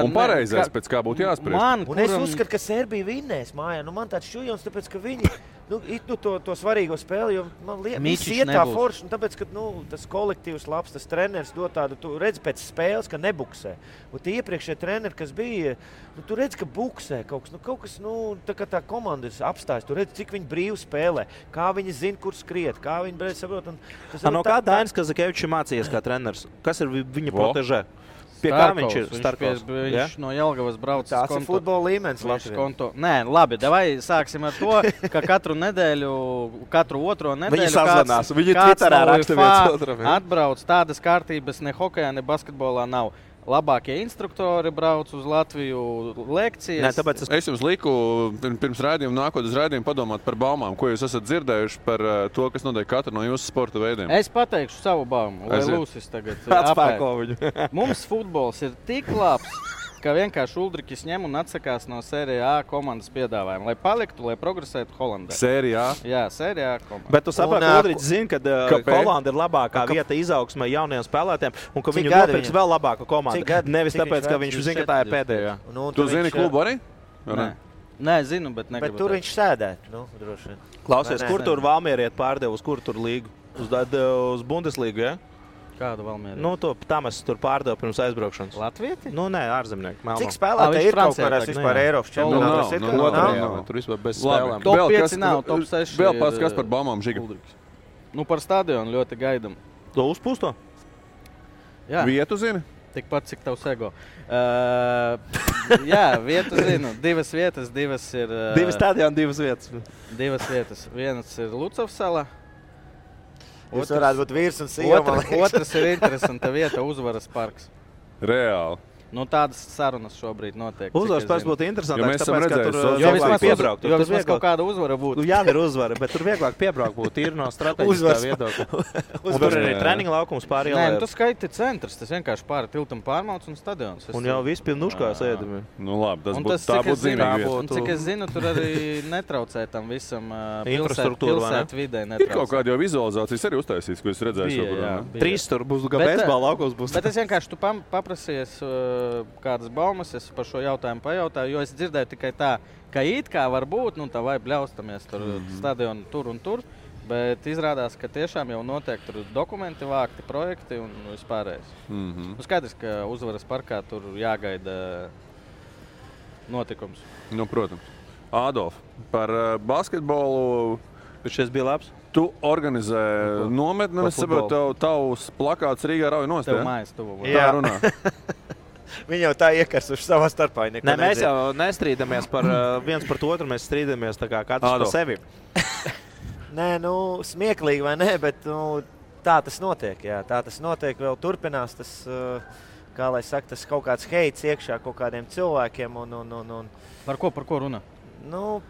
Un pareizais pēc kā būtu jāspriest. Un es uzskatu, ka Serbija vinnēs mājā. Man tāds šujons, tāpēc, ka viņi to svarīgo spēli, jo man liekas, iet tā forši, un tāpēc, ka tas kolektīvs labs, tas treneris dod tādu, tu redzi pēc spēles, ka nebuksē. Un tie iepriekšējie treneri, kas bija, tu redzi, ka buksē kaut kas, tā kā tā komanda ir apstājas, tu redzi, cik viņi brīvi spēlē, kā viņi zina, kur skriet, kā viņi brīvi saprot. No kā Dainis Kazakevičs mācījies kā treneris? Kas ir viņa protežē? Pie kā viņš ir Starkovs? Viņš no Jelgavas braucis. Tās ir futbola līmenis Latvijā. Nē, labi, davai sāksim ar to, ka katru otro nedēļu viņi sazvanās. Viņi Twitterā raksta viens otram. Atbrauc tādas kārtības ne hokejā, ne basketbolā nav. Labākie instruktori brauc uz Latviju lekcijas. Nē, tāpēc es jums liku pirms raidījuma, nākot uz raidījumu, padomāt par baumām, ko jūs esat dzirdējuši par to, kas notiek katru no jūsu sporta veidiem. Es pateikšu savu baumu, lai Lūsis tagad atspēko viņu. Mums futbols ir tik labs, ka vienkārši Uldrikis ņem un atsakās no Sērijā A komandas piedāvājuma, lai paliktu, lai progresētu Holandē. Sērijā? Jā, Sērijā A komanda. Bet tu saproti, ka Uldriķis zina, ka Holanda ir labākā vieta izaugsmai jaunajiem spēlētājiem un ka viņu nopirks vēl labāka komanda. Nevis tāpēc, ka viņš zina, ka tā ir pēdējā. Tu zini klubu arī? Nē, zinu, bet negribu. Bet tur viņš sēdēt, droši vien. Klausies, kur tur Valmieriet pārdeva, uz kur tur līgu? Uz Bundeslīgu, ja? Kādu Valmieriet? Tam es tur pārdevu pirms aizbraukšanas. Latvieti? Nē, ārzemnieki. Cik spēlētāji ir kaut kādās vispār Eiropas čempionātās? Tur vispār bez spēlēm. Top 5 nav, top 6 Vēl pats, kas par baumām Žiga? Par stadionu ļoti gaidam. To uzpūsto? Jā. Vietu zini? Tikpat, cik tavs ego. Jā, vietu zinu. 2 vietas, 2 ir... 2 stadioni, 2 vietas. 2 vietas. Vienas ir Lucavas salā. Jūs varētu būt vīrs un sieva. Otrs ir interesanta vieta, Uzvaras parks. Reāli. Tādas sarunas šobrīd notiek. Uzvaras parks būtu interesantāks, tāpēc, ka tur vieglāk piebraukt. Jo vismaz kaut kāda uzvara būtu. Jā, ir uzvara, bet tur vieglāk piebraukt būtu ir no strateģiskā viedokļa. Tur ir treniņa laukums pāri ielai. Nē, tu skaiti centrs, tas vienkārši pāri tiltam pārmauc un stadions. Un jau viss pilnuškās ēdami. Labi, tā būtu zīmīga. Un cik es zinu, tur arī netraucē tam visam pilsētu vidē. Ir kaut kāda jau vizualizācijas arī uztaisīs, ko es redzēju. 3 tur būs, kā beisbola laukums būs. Bet es vienkārši tu paprasies kādas baumas, es par šo jautājumu pajautāju, jo es dzirdēju tikai tā, ka it kā var būt, tā vai bļaustamies tur stadionu tur un tur, bet izrādās, ka tiešām jau notiek tur dokumenti vākti, projekti un vispārējais. Skaidrs, ka Uzvaras parkā tur jāgaida notikums. Protams. Ādolf, par basketbolu šis bija labs. Tu organizē nometni, un es saprotu, tavs plakāts Rīgā rauj nost, Tev mājas tuvu. Tā runā. Viņi jau tā iekarsuši savā starpā. Nē, mēs jau nestrīdamies par viens par otru, mēs strīdamies tā kā katrs par sevi. Nē, smieklīgi vai nē, bet tā tas notiek. Jā, tā tas notiek, vēl turpinās tas, kā lai saka, tas kaut kāds heits iekšā kaut kādiem cilvēkiem. Par ko runā?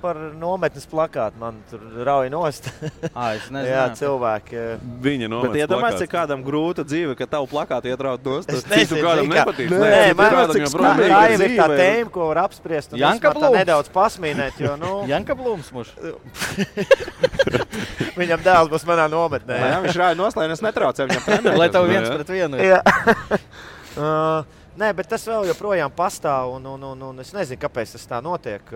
Par nometnes plakātu man tur rauj nost. Es nezinu. Jā, cilvēki. Viņa nometnes plakāts. Bet iedomājies, cik kādam grūta dzīve, ka tavu plakātu ietraut nost. Es nezinu, kādam nepatīk. Nē, man tā jau ir tā tēma, ko var apspriest. Un Janka Blūms. Nedaudz pasmīnēt, jo, Janka Blūms muš. Viņam dēls būs manā nometnē. Jā, viņš rauj nost, lai es netraucēju viņam trenēt. Lai tev 1-1. Jā. Nē, bet tas vēl joprojām pastāv, un es nezinu, kāpēc tas tā notiek.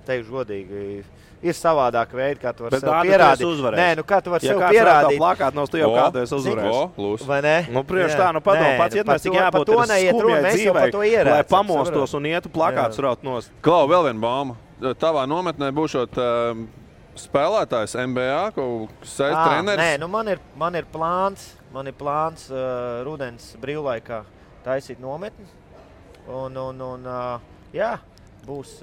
Teikšu godīgi, ir savādāk veidi, kā tu vari sev pierādīt. Nē, kā tu vari sev pierādīt. Ja plakāt no tu jau kādu esi uzvarējis. Vai ne? Priekš tā, padomu, pats ietmēs, cik jābūt ir skumjai dzīvei, lai pamostos un ietu plakātus raut nost. Klau, vēl viena bauma. Tavā nometnē būšot spēlētājs NBA, treneris? Nē, man ir plāns rudens brīvlaikā taisīt nometni. Jā, būs...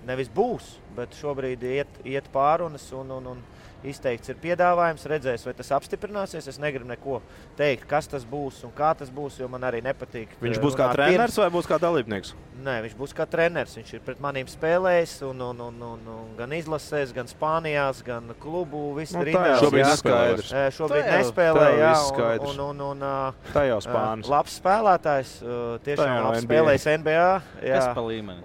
Nevis būs, bet šobrīd iet pārunas un izteikts ir piedāvājums. Redzēs, vai tas apstiprināsies. Es negribu neko teikt, kas tas būs un kā tas būs, jo man arī nepatīk. Viņš būs kā treneris vai būs kā dalībnieks? Nē, viņš būs kā treneris. Viņš ir pret manīm spēlējis un gan izlasēs, gan Spānijās, gan klubu. Šobrīd neskaidrs. Šobrīd nespēlē, jā. Tā jau Spānis. Labs spēlētājs, tiešām labs spēlējis NBA. Kas pa līmeni?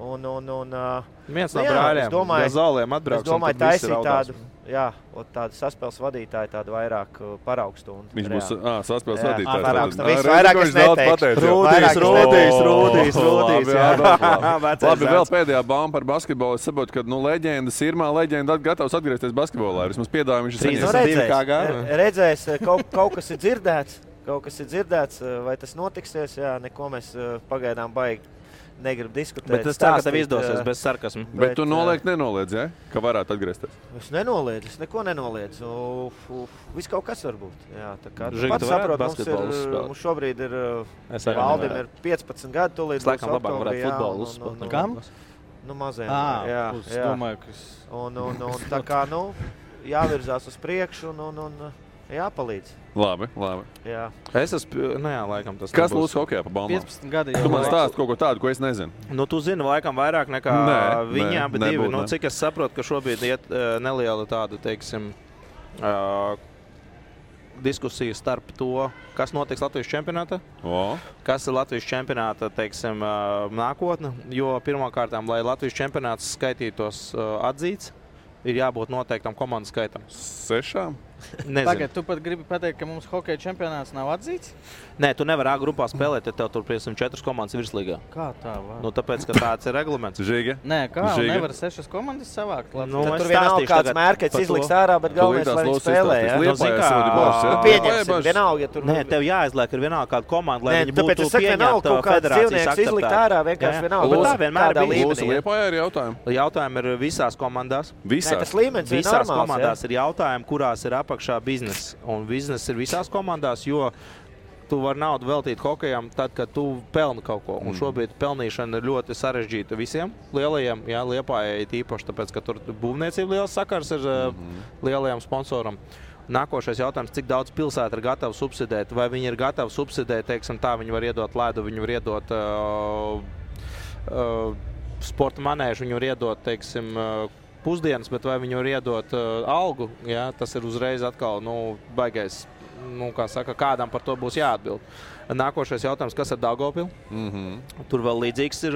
Viens no brāļiem, Gazoliem atbrauks. Es domāju, taisīt tādu, tādu saspēles vadītāju, tādu vairāk paraugstundu. Viņš būs saspēles vadītājs. Viss vairāk es neteiktu. Rūdīs. Labi, vēl pēdējā bauma par basketbolu. Es saprotu, ka leģendas, Irmā leģenda gatavs atgriezties basketbolā. Vismaz piedāvājumu viņš ir saņēmis. Redzēs, kaut kas ir dzirdēts. Vai tas notiksies? Jā, neko mēs pagaidām baigi. Negribu diskutēt. Bet tas tā, ka tev izdosies bez sarkasmu. Bet tu nenoliedz, ja? Ka varētu atgriezties? Es nenoliedzu, es neko nenoliedzu. Viss kaut kas var būt. Jā, tā kā tu pats saprot, mums šobrīd ir Valdim ir 15 gadu, tūlīt būs oktobri. Futbolu uzspēlēt. Kam? Maziem. Jā. Domāju, kas... Un tā kā, jāvirzās uz priekšu un jāpalīdz. Labi. Jā. Es esmu, laikam tas kas lūdzu hokejā pa baumām? 15 gadi jau. Tu man stāsti kaut ko tādu, ko es nezinu. Tu zini laikam vairāk nekā viņā, bet divi. Cik es saprotu, ka šobrīd iet neliela tāda, teiksim, diskusija starp to, kas notiks Latvijas čempionātā, kas ir Latvijas čempionāta, teiksim, nākotne, jo pirmkārtām, lai Latvijas čempionāts skaitītos atzīts, ir jābūt noteiktam komandu skaitam. 6? Tagad tu pat gribi pateikt, ka mums hokeja čempionāts nav atzīts? Nē, tu nevari A grupā spēlēt, ja tev tur, piemēram, 4 komandas virslīgā. Kā tā var? Nu, tāpēc, ka tāds ir reglaments. Žiga? Nē, kā? Nevar 6 komandas savākt. Nu, tur vienalga kāds mērķis izliks ārā, bet galvenais, lai viņi spēlē, ja? Pieņemsim, vienalga, ja tur... Nē, tev jāizliek ir vienalga kāda komanda, lai viņi būtu pieņemta federācijas akceptēta. Izlikt ārā vienkārši vienalga. Tā vienmēr bija. Lūsu Liepājā ir jautājumi. Jautājumi ir visās komandās. Visās komandās ir jautājumi, kurās ir apakšā biznesa. Un biznesa ir visās komandās, jo tu vari naudu veltīt hokejam tad, kad tu pelni kaut ko. Un šobrīd pelnīšana ir ļoti sarežģīta visiem lielajiem, jā, Liepājai tīpaši, tāpēc, ka tur būvniecība liels sakars ir lielajam sponsoram. Nākošais jautājums, cik daudz pilsēta ir gatava subsidēt, vai viņi ir gatavi subsidēt, teiksim tā, viņi var iedot ledu, viņi var iedot sporta manēžu, viņi var iedot, teiksim, pusdienas, bet vai viņi var iedot algu, jā, tas ir uzreiz atkal, baigais, kā saka, kādam par to būs jāatbild. Nākošais jautājums, kas ar Daugavpilu? Tur vēl līdzīgs ir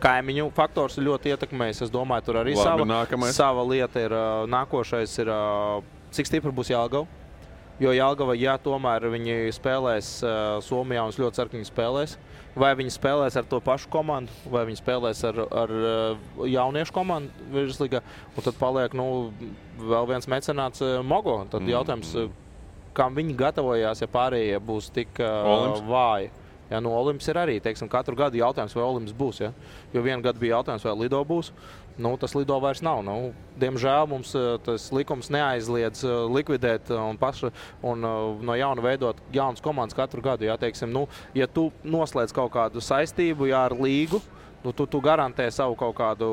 kaimiņu faktors ļoti ietekmējis. Es domāju, tur arī sava lieta ir. Nākošais ir, cik stipri būs Jelgava. Jo Jelgava, ja tomēr viņi spēlēs Somijā un ļoti ceru, ka viņi spēlēs. Vai viņi spēlēs ar to pašu komandu, vai viņi spēlēs ar jauniešu komandu virslīgā. Un tad paliek vēl viens mecenāts Mogo. Tad jautājums, kam viņi gatavojās, ja pārējie būs tik vāji. Ja, Olimps ir arī, teiksim, katru gadu jautājums, vai Olimps būs. Ja? Jo vienu gadu bija jautājums, vai Lido būs. Tas Lido vairs nav. Diemžēl mums tas likums neaizliedz likvidēt un no jauna veidot jaunas komandas katru gadu. Ja, teiksim, ja tu noslēdz kaut kādu saistību ar līgu, tu garantē savu kaut kādu,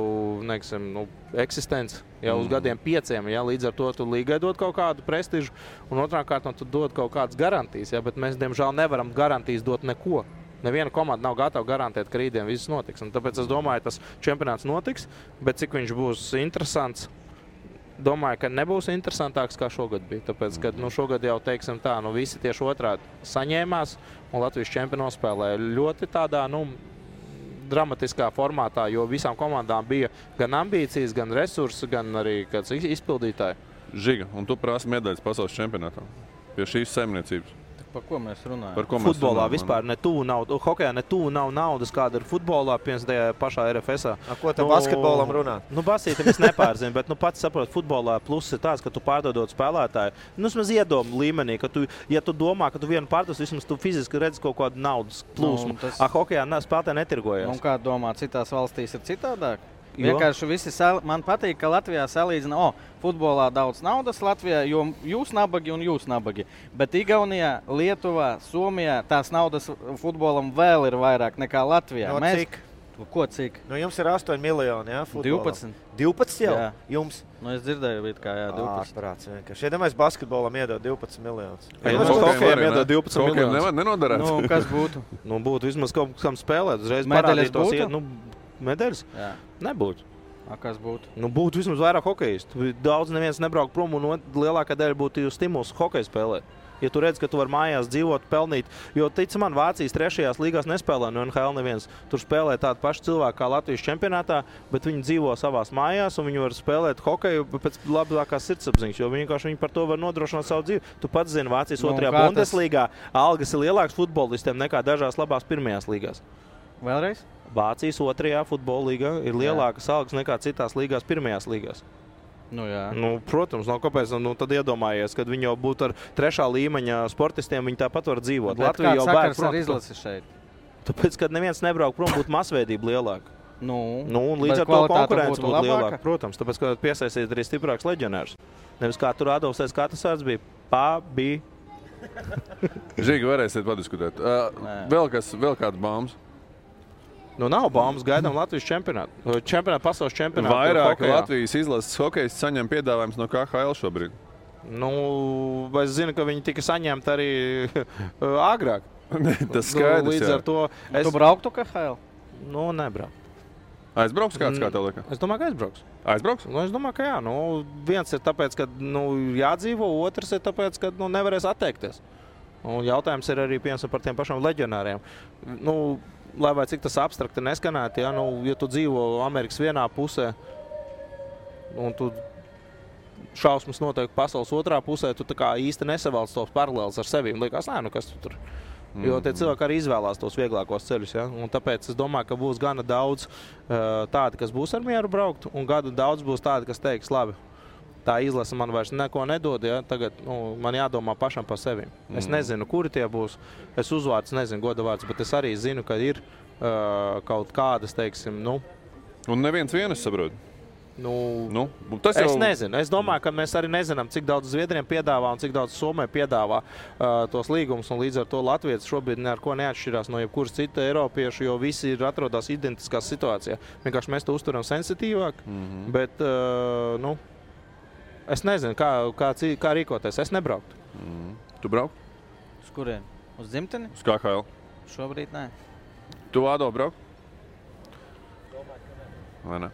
eksistenci uz gadiem 5, ja, līdz ar to tu līgai dod kaut kādu prestižu, un otrā kārtā tu dod kaut kādas garantijas, ja, bet mēs, diemžēl, nevaram garantijas dot neko. Neviena komanda nav gatava garantēt, ka rītdien viss notiks. Un tāpēc es domāju, tas čempionāts notiks, bet cik viņš būs interesants, domāju, ka nebūs interesantāks kā šogad bija. Tāpēc, ka šogad jau, teiksim tā, visi tieši otrādi saņēmās, un Latvijas čempioni spēlēja ļoti tādā, dramatiskā formātā, jo visām komandām bija gan ambīcijas, gan resursi, gan arī kāds izpildītāji. Žiga, un tu prasi medaļas pasaules čempionātā pie šīs saimniecības. Par ko mēs runājam? Futbolā vispār netuvu nav, hokejā netuvu nav naudas, kāda ir futbolā, piemēram, pašā RFS-ā. Ko te basketbolam runāt? Basītam es nepārzinu, bet pats saprot, futbolā pluss ir tāds, ka tu pārdodot spēlētāju. Vismaz iedomu līmenī, ka ja tu domā, ka tu vienu pārdos, vismaz tu fiziski redzi kaut kādu naudas plūsmu. Hokejā spēlētāji netirgojas. Un kā domā, citās valstīs ir citādāk? Vienkārši visi man patīk, ka Latvijā salīdzina, futbolā daudz naudas Latvijā, jo jūs nabagi un jūs nabagi. Bet Igaunijā, Lietuvā, Somijā tās naudas futbolam vēl ir vairāk nekā Latvijā. Cik? Ko cik? Jums ir 8 miljoni, jā, futbolam. 12. 12 jau? Jā. Jums? Es dzirdēju, kā 12. Prāts vienkārši. Iedomājies, basketbolam iedod 12 miljonus. Hokejam iedod 12 miljonus. Nenodarās. Kas būtu? Būtu vismaz kaut kam spēlēt. Uzreiz medaļas būtu? Medaļas? Jā. Nebūtu. Kas būtu? Būtu vismaz vairāk hokejistu. Daudz neviens nebrauk prom un lielākā daļa būtu stimuls hokeju spēlēt. Ja tu redz, ka tu vari mājās dzīvot, pelnīt, jo, tic man, Vācijas 3. līgās nespēlē no NHL neviens. Tur spēlē tādi paši cilvēki kā Latvijas čempionātā, bet viņi dzīvo savās mājās un viņi var spēlēt hokeju pēc labākās sirdsapziņas, jo viņi par to var nodrošināt savu dzīvi. Tu pats zini, Vācijas 2. Bundeslīgā algas ir lielākas futbolistiem nekā dažās labās 1. līgās. Vēlreiz? Vācijas 2. futbola līgā ir lielākas algas nekā citās līgās 1. līgās. Jā. Protams, kāpēc? Tad iedomājies, kad viņi jau būtu ar 3. līmeņa sportistiem, viņi tāpat var dzīvot. Latvija jau sakars ar izlasi šeit? Tāpēc, kad neviens nebrauk prom, būtu masveidība lielāka. Un līdz ar to konkurence būtu lielāka. Protams, tāpēc, ka piesaistīt arī stiprāks leģionārs. Nevis kā tur Adolfs Katasārds bija. Bija. Žīgi, varēsiet padiskutēt. Vēl kāds baumas? Nav baumas, gaidām Latvijas čempionātu. Pasaules čempionātu. Vairāk Latvijas izlases hokejisti saņem piedāvājums no KHL šobrīd. Es zinu, ka viņi tika saņemti arī agrāk. Tas skaidrs, līdz ar to Tu brauktu KHL? Nebraukt. Aizbrauks kāds, kā tev liekas? Es domāju, ka aizbrauks. Aizbrauks? Es domāju, ka jā. Viens ir tāpēc, ka jādzīvo, otrs ir tāpēc, ka nevarēs atteikties. Un jautājums ir arī par tiem pašiem leģionāriem. Lai vai cik tas abstrakti neskanētu, ja tu dzīvo Amerikas vienā pusē un tu šausmas notiek pasaules otrā pusē, tu tā kā īsti nesavalc tos paralēlus ar sevi. Liekas, nē, nu kas tu tur? Jo tie cilvēki arī izvēlās tos vieglākos ceļus. Ja? Un tāpēc es domāju, ka būs gana daudz tādi, kas būs ar mieru braukt, un gana daudz būs tādi, kas teiks, labi, tā izlase man vairs neko nedod, ja? Tagad man jādomā pašam par sevi. Es nezinu, kuri tie būs. Es uzvārds nezinu, godavārds, bet es arī zinu, ka ir kaut kādas, teiksim, Un neviens vienas saprot. Tas jau... Es nezinu. Es domāju, ka mēs arī nezinām, cik daudz Zviedriem piedāvā un cik daudz Somē piedāvā tos līgumus. Un līdz ar to Latvijas šobrīd ar ko neatšķirās no jebkuras cita Eiropiešu, jo visi atrodas identiskā situācijā. Vienkārši mēs to uzturam sensitīvāk. Bet, es nezinu, kā rīkoties. Es nebrauktu. Tu braukt? Uz kurien? Uz dzimteni? Uz KHL. Šobrīd nē. Tu, Ādo, braukt? Vai ne?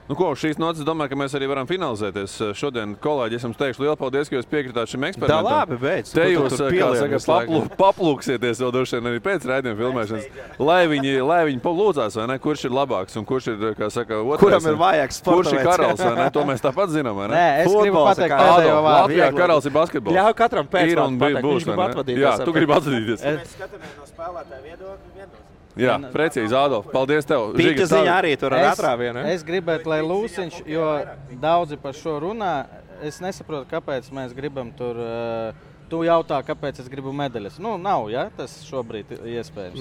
Ko, šīs nocis domāju, ka mēs arī varam finalizēties. Šodien, kolēģi, es jums teikšu lielu paldies, ka jūs piekritāt šim eksperimentam. Da labi, beidz. Te jūs, kā saka, paplūksieties vēl droši vien arī pēc raidījuma filmēšanas, lai viņi lūdzās, vai ne, kurš ir labāks un kurš ir, kā saka, otrais. Kuram ir vajāks sporta kurš ir karalis, vai ne? To mēs tāpat zinām, vai ne? Nē, es gribu pateikt pēdējo vārdu. Latvijā karalis ir basketbols. Ļauj katram pēcvārdu pateikt, viņš grib atvadīties. Jā, tu gribi atvadīties. Mēs skatāmies no spēlētāja viedokļa vienos. Jā, precīzi, Ādolf. Paldies tev. Pīķa ziņā arī tur ar atrāvienu. Es gribētu, lai Lūsiņš, jo daudzi par šo runā, es nesaprotu, kāpēc mēs gribam tur... Tu jautā, kāpēc es gribu medaļas. Nav, ja? Tas šobrīd iespējams.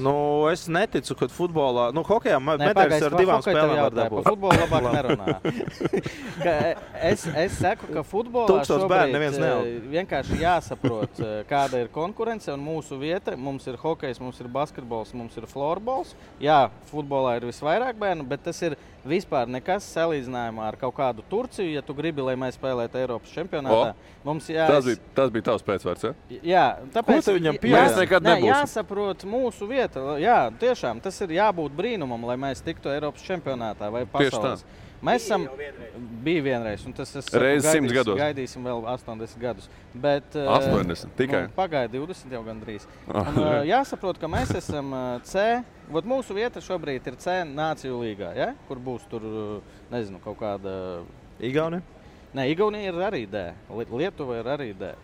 Es neticu, ka futbolā... Hokejā medaļas ar divām spēlēm var dabūt. Par futbolu labāk nerunā. Es saku, ka futbolā šobrīd vienkārši jāsaprot, kāda ir konkurence un mūsu vieta. Mums ir hokejs, mums ir basketbols, mums ir florbols. Jā, futbolā ir visvairāk bērnu, bet tas ir vispār nekas salīdzinājumā ar kaut kādu Turciju, ja tu gribi, lai mēs spēlētu Eiropas čempionātā. Tas bija tavs pēcvārds, ja? Jā, tāpēc ko tu viņam pieļauj? Jāsaprot mūsu vieta. Jā, tiešām, tas ir jābūt brīnumam, lai mēs tiktu Eiropas čempionātā vai pasaules. Mēs esam bija vienreiz, un tas reiz 100 gados. Gaidīsim vēl 80 gadus. Bet, 80 tikai? Pagaida 20 jau gandrīz. Jāsaprot, ka mēs esam C. Mūsu vieta šobrīd ir C Nāciju līgā, ja? Kur būs tur, nezinu, kaut kāda... Igaunija? Nē, Igaunija ir arī D. Lietuva ir arī D.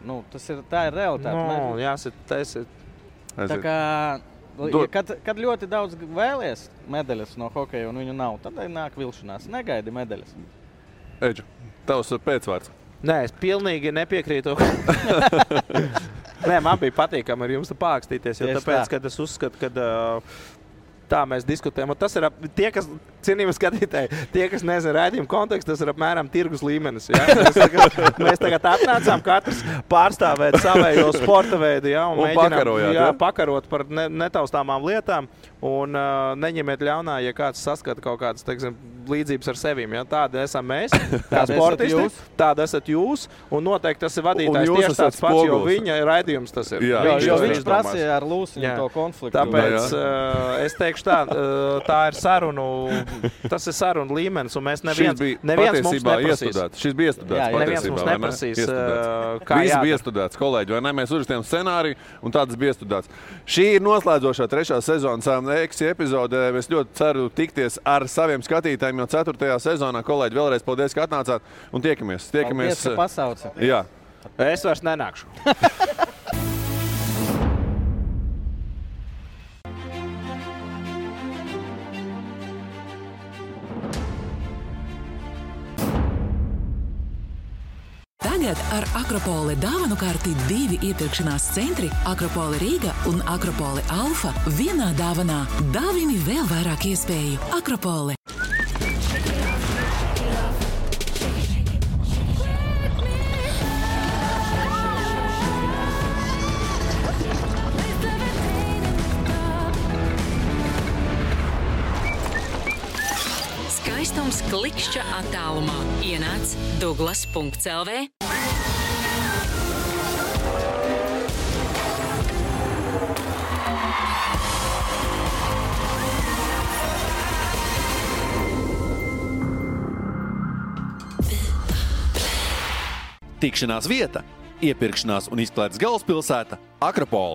Tā ir realitāte. Jāsit. Tā kā... Kad ļoti daudz vēlies medaļas no hokeja un viņu nav, tad nāk vilšanās. Negaidi medaļas. Eģu, tavs pēcvārds. Nē, es pilnīgi nepiekrītu. Nē, man bija patīkami ar jums pākstīties, jo tāpēc, kad es uzskatu, ka tā mēs diskutējam. Un tas ir tie, kas, cienījami skatītāji, tie, kas nezina raidījuma kontekstu, tas ir apmēram tirgus līmenis. Ja? Mēs tagad atnācām katrs pārstāvēt savējo sporta veidu, ja? Un mēģinām pakarot par netaustāmām lietām. Un neņemiet ļaunā, ja kāds saskata kaut kādas, teiksim, līdzības ar sevīm. Ja? Tāda esam mēs, kā sportisti, tāda esat jūs, un noteikti tas ir vadītājs tieši tāds pats, jo viņa raidījums tas ir. Jo viņš prasīja ar Lūsiņu to konfliktu. Tāpēc es teikšu tā ir sarunu, tas ir sarunu līmenis, un mēs neviens mums neprasīs. Šis bija iestudēts. Neviens mums neprasīs, kā jādara. Viss bija iestudēts, kolēģi, vai ne? Mēs uzrakstījām scenāriju, un tāds bija iestudēts. Šī ir noslēdzošā 3. sezonas Eksi epizodē. Es ļoti ceru tikties ar saviem skatītājiem jau 4. sezonā. Kolēģi, vēlreiz paldies, ka atnācāt, un tiekamies. Paldies, ka pasauci. Jā. Es vairs nenākšu. Tagad ar Akropole dāvanu karti 2 iepirkšanās centri Akropole Rīga un Akropole Alfa vienā dāvanā. Dāvini vēl vairāk iespēju. Akropole. Skaistums klikšķa attālumā. Ienāc Douglas.lv. Tikšanās vieta, iepirkšanās un izklaides galvaspilsēta Akropole.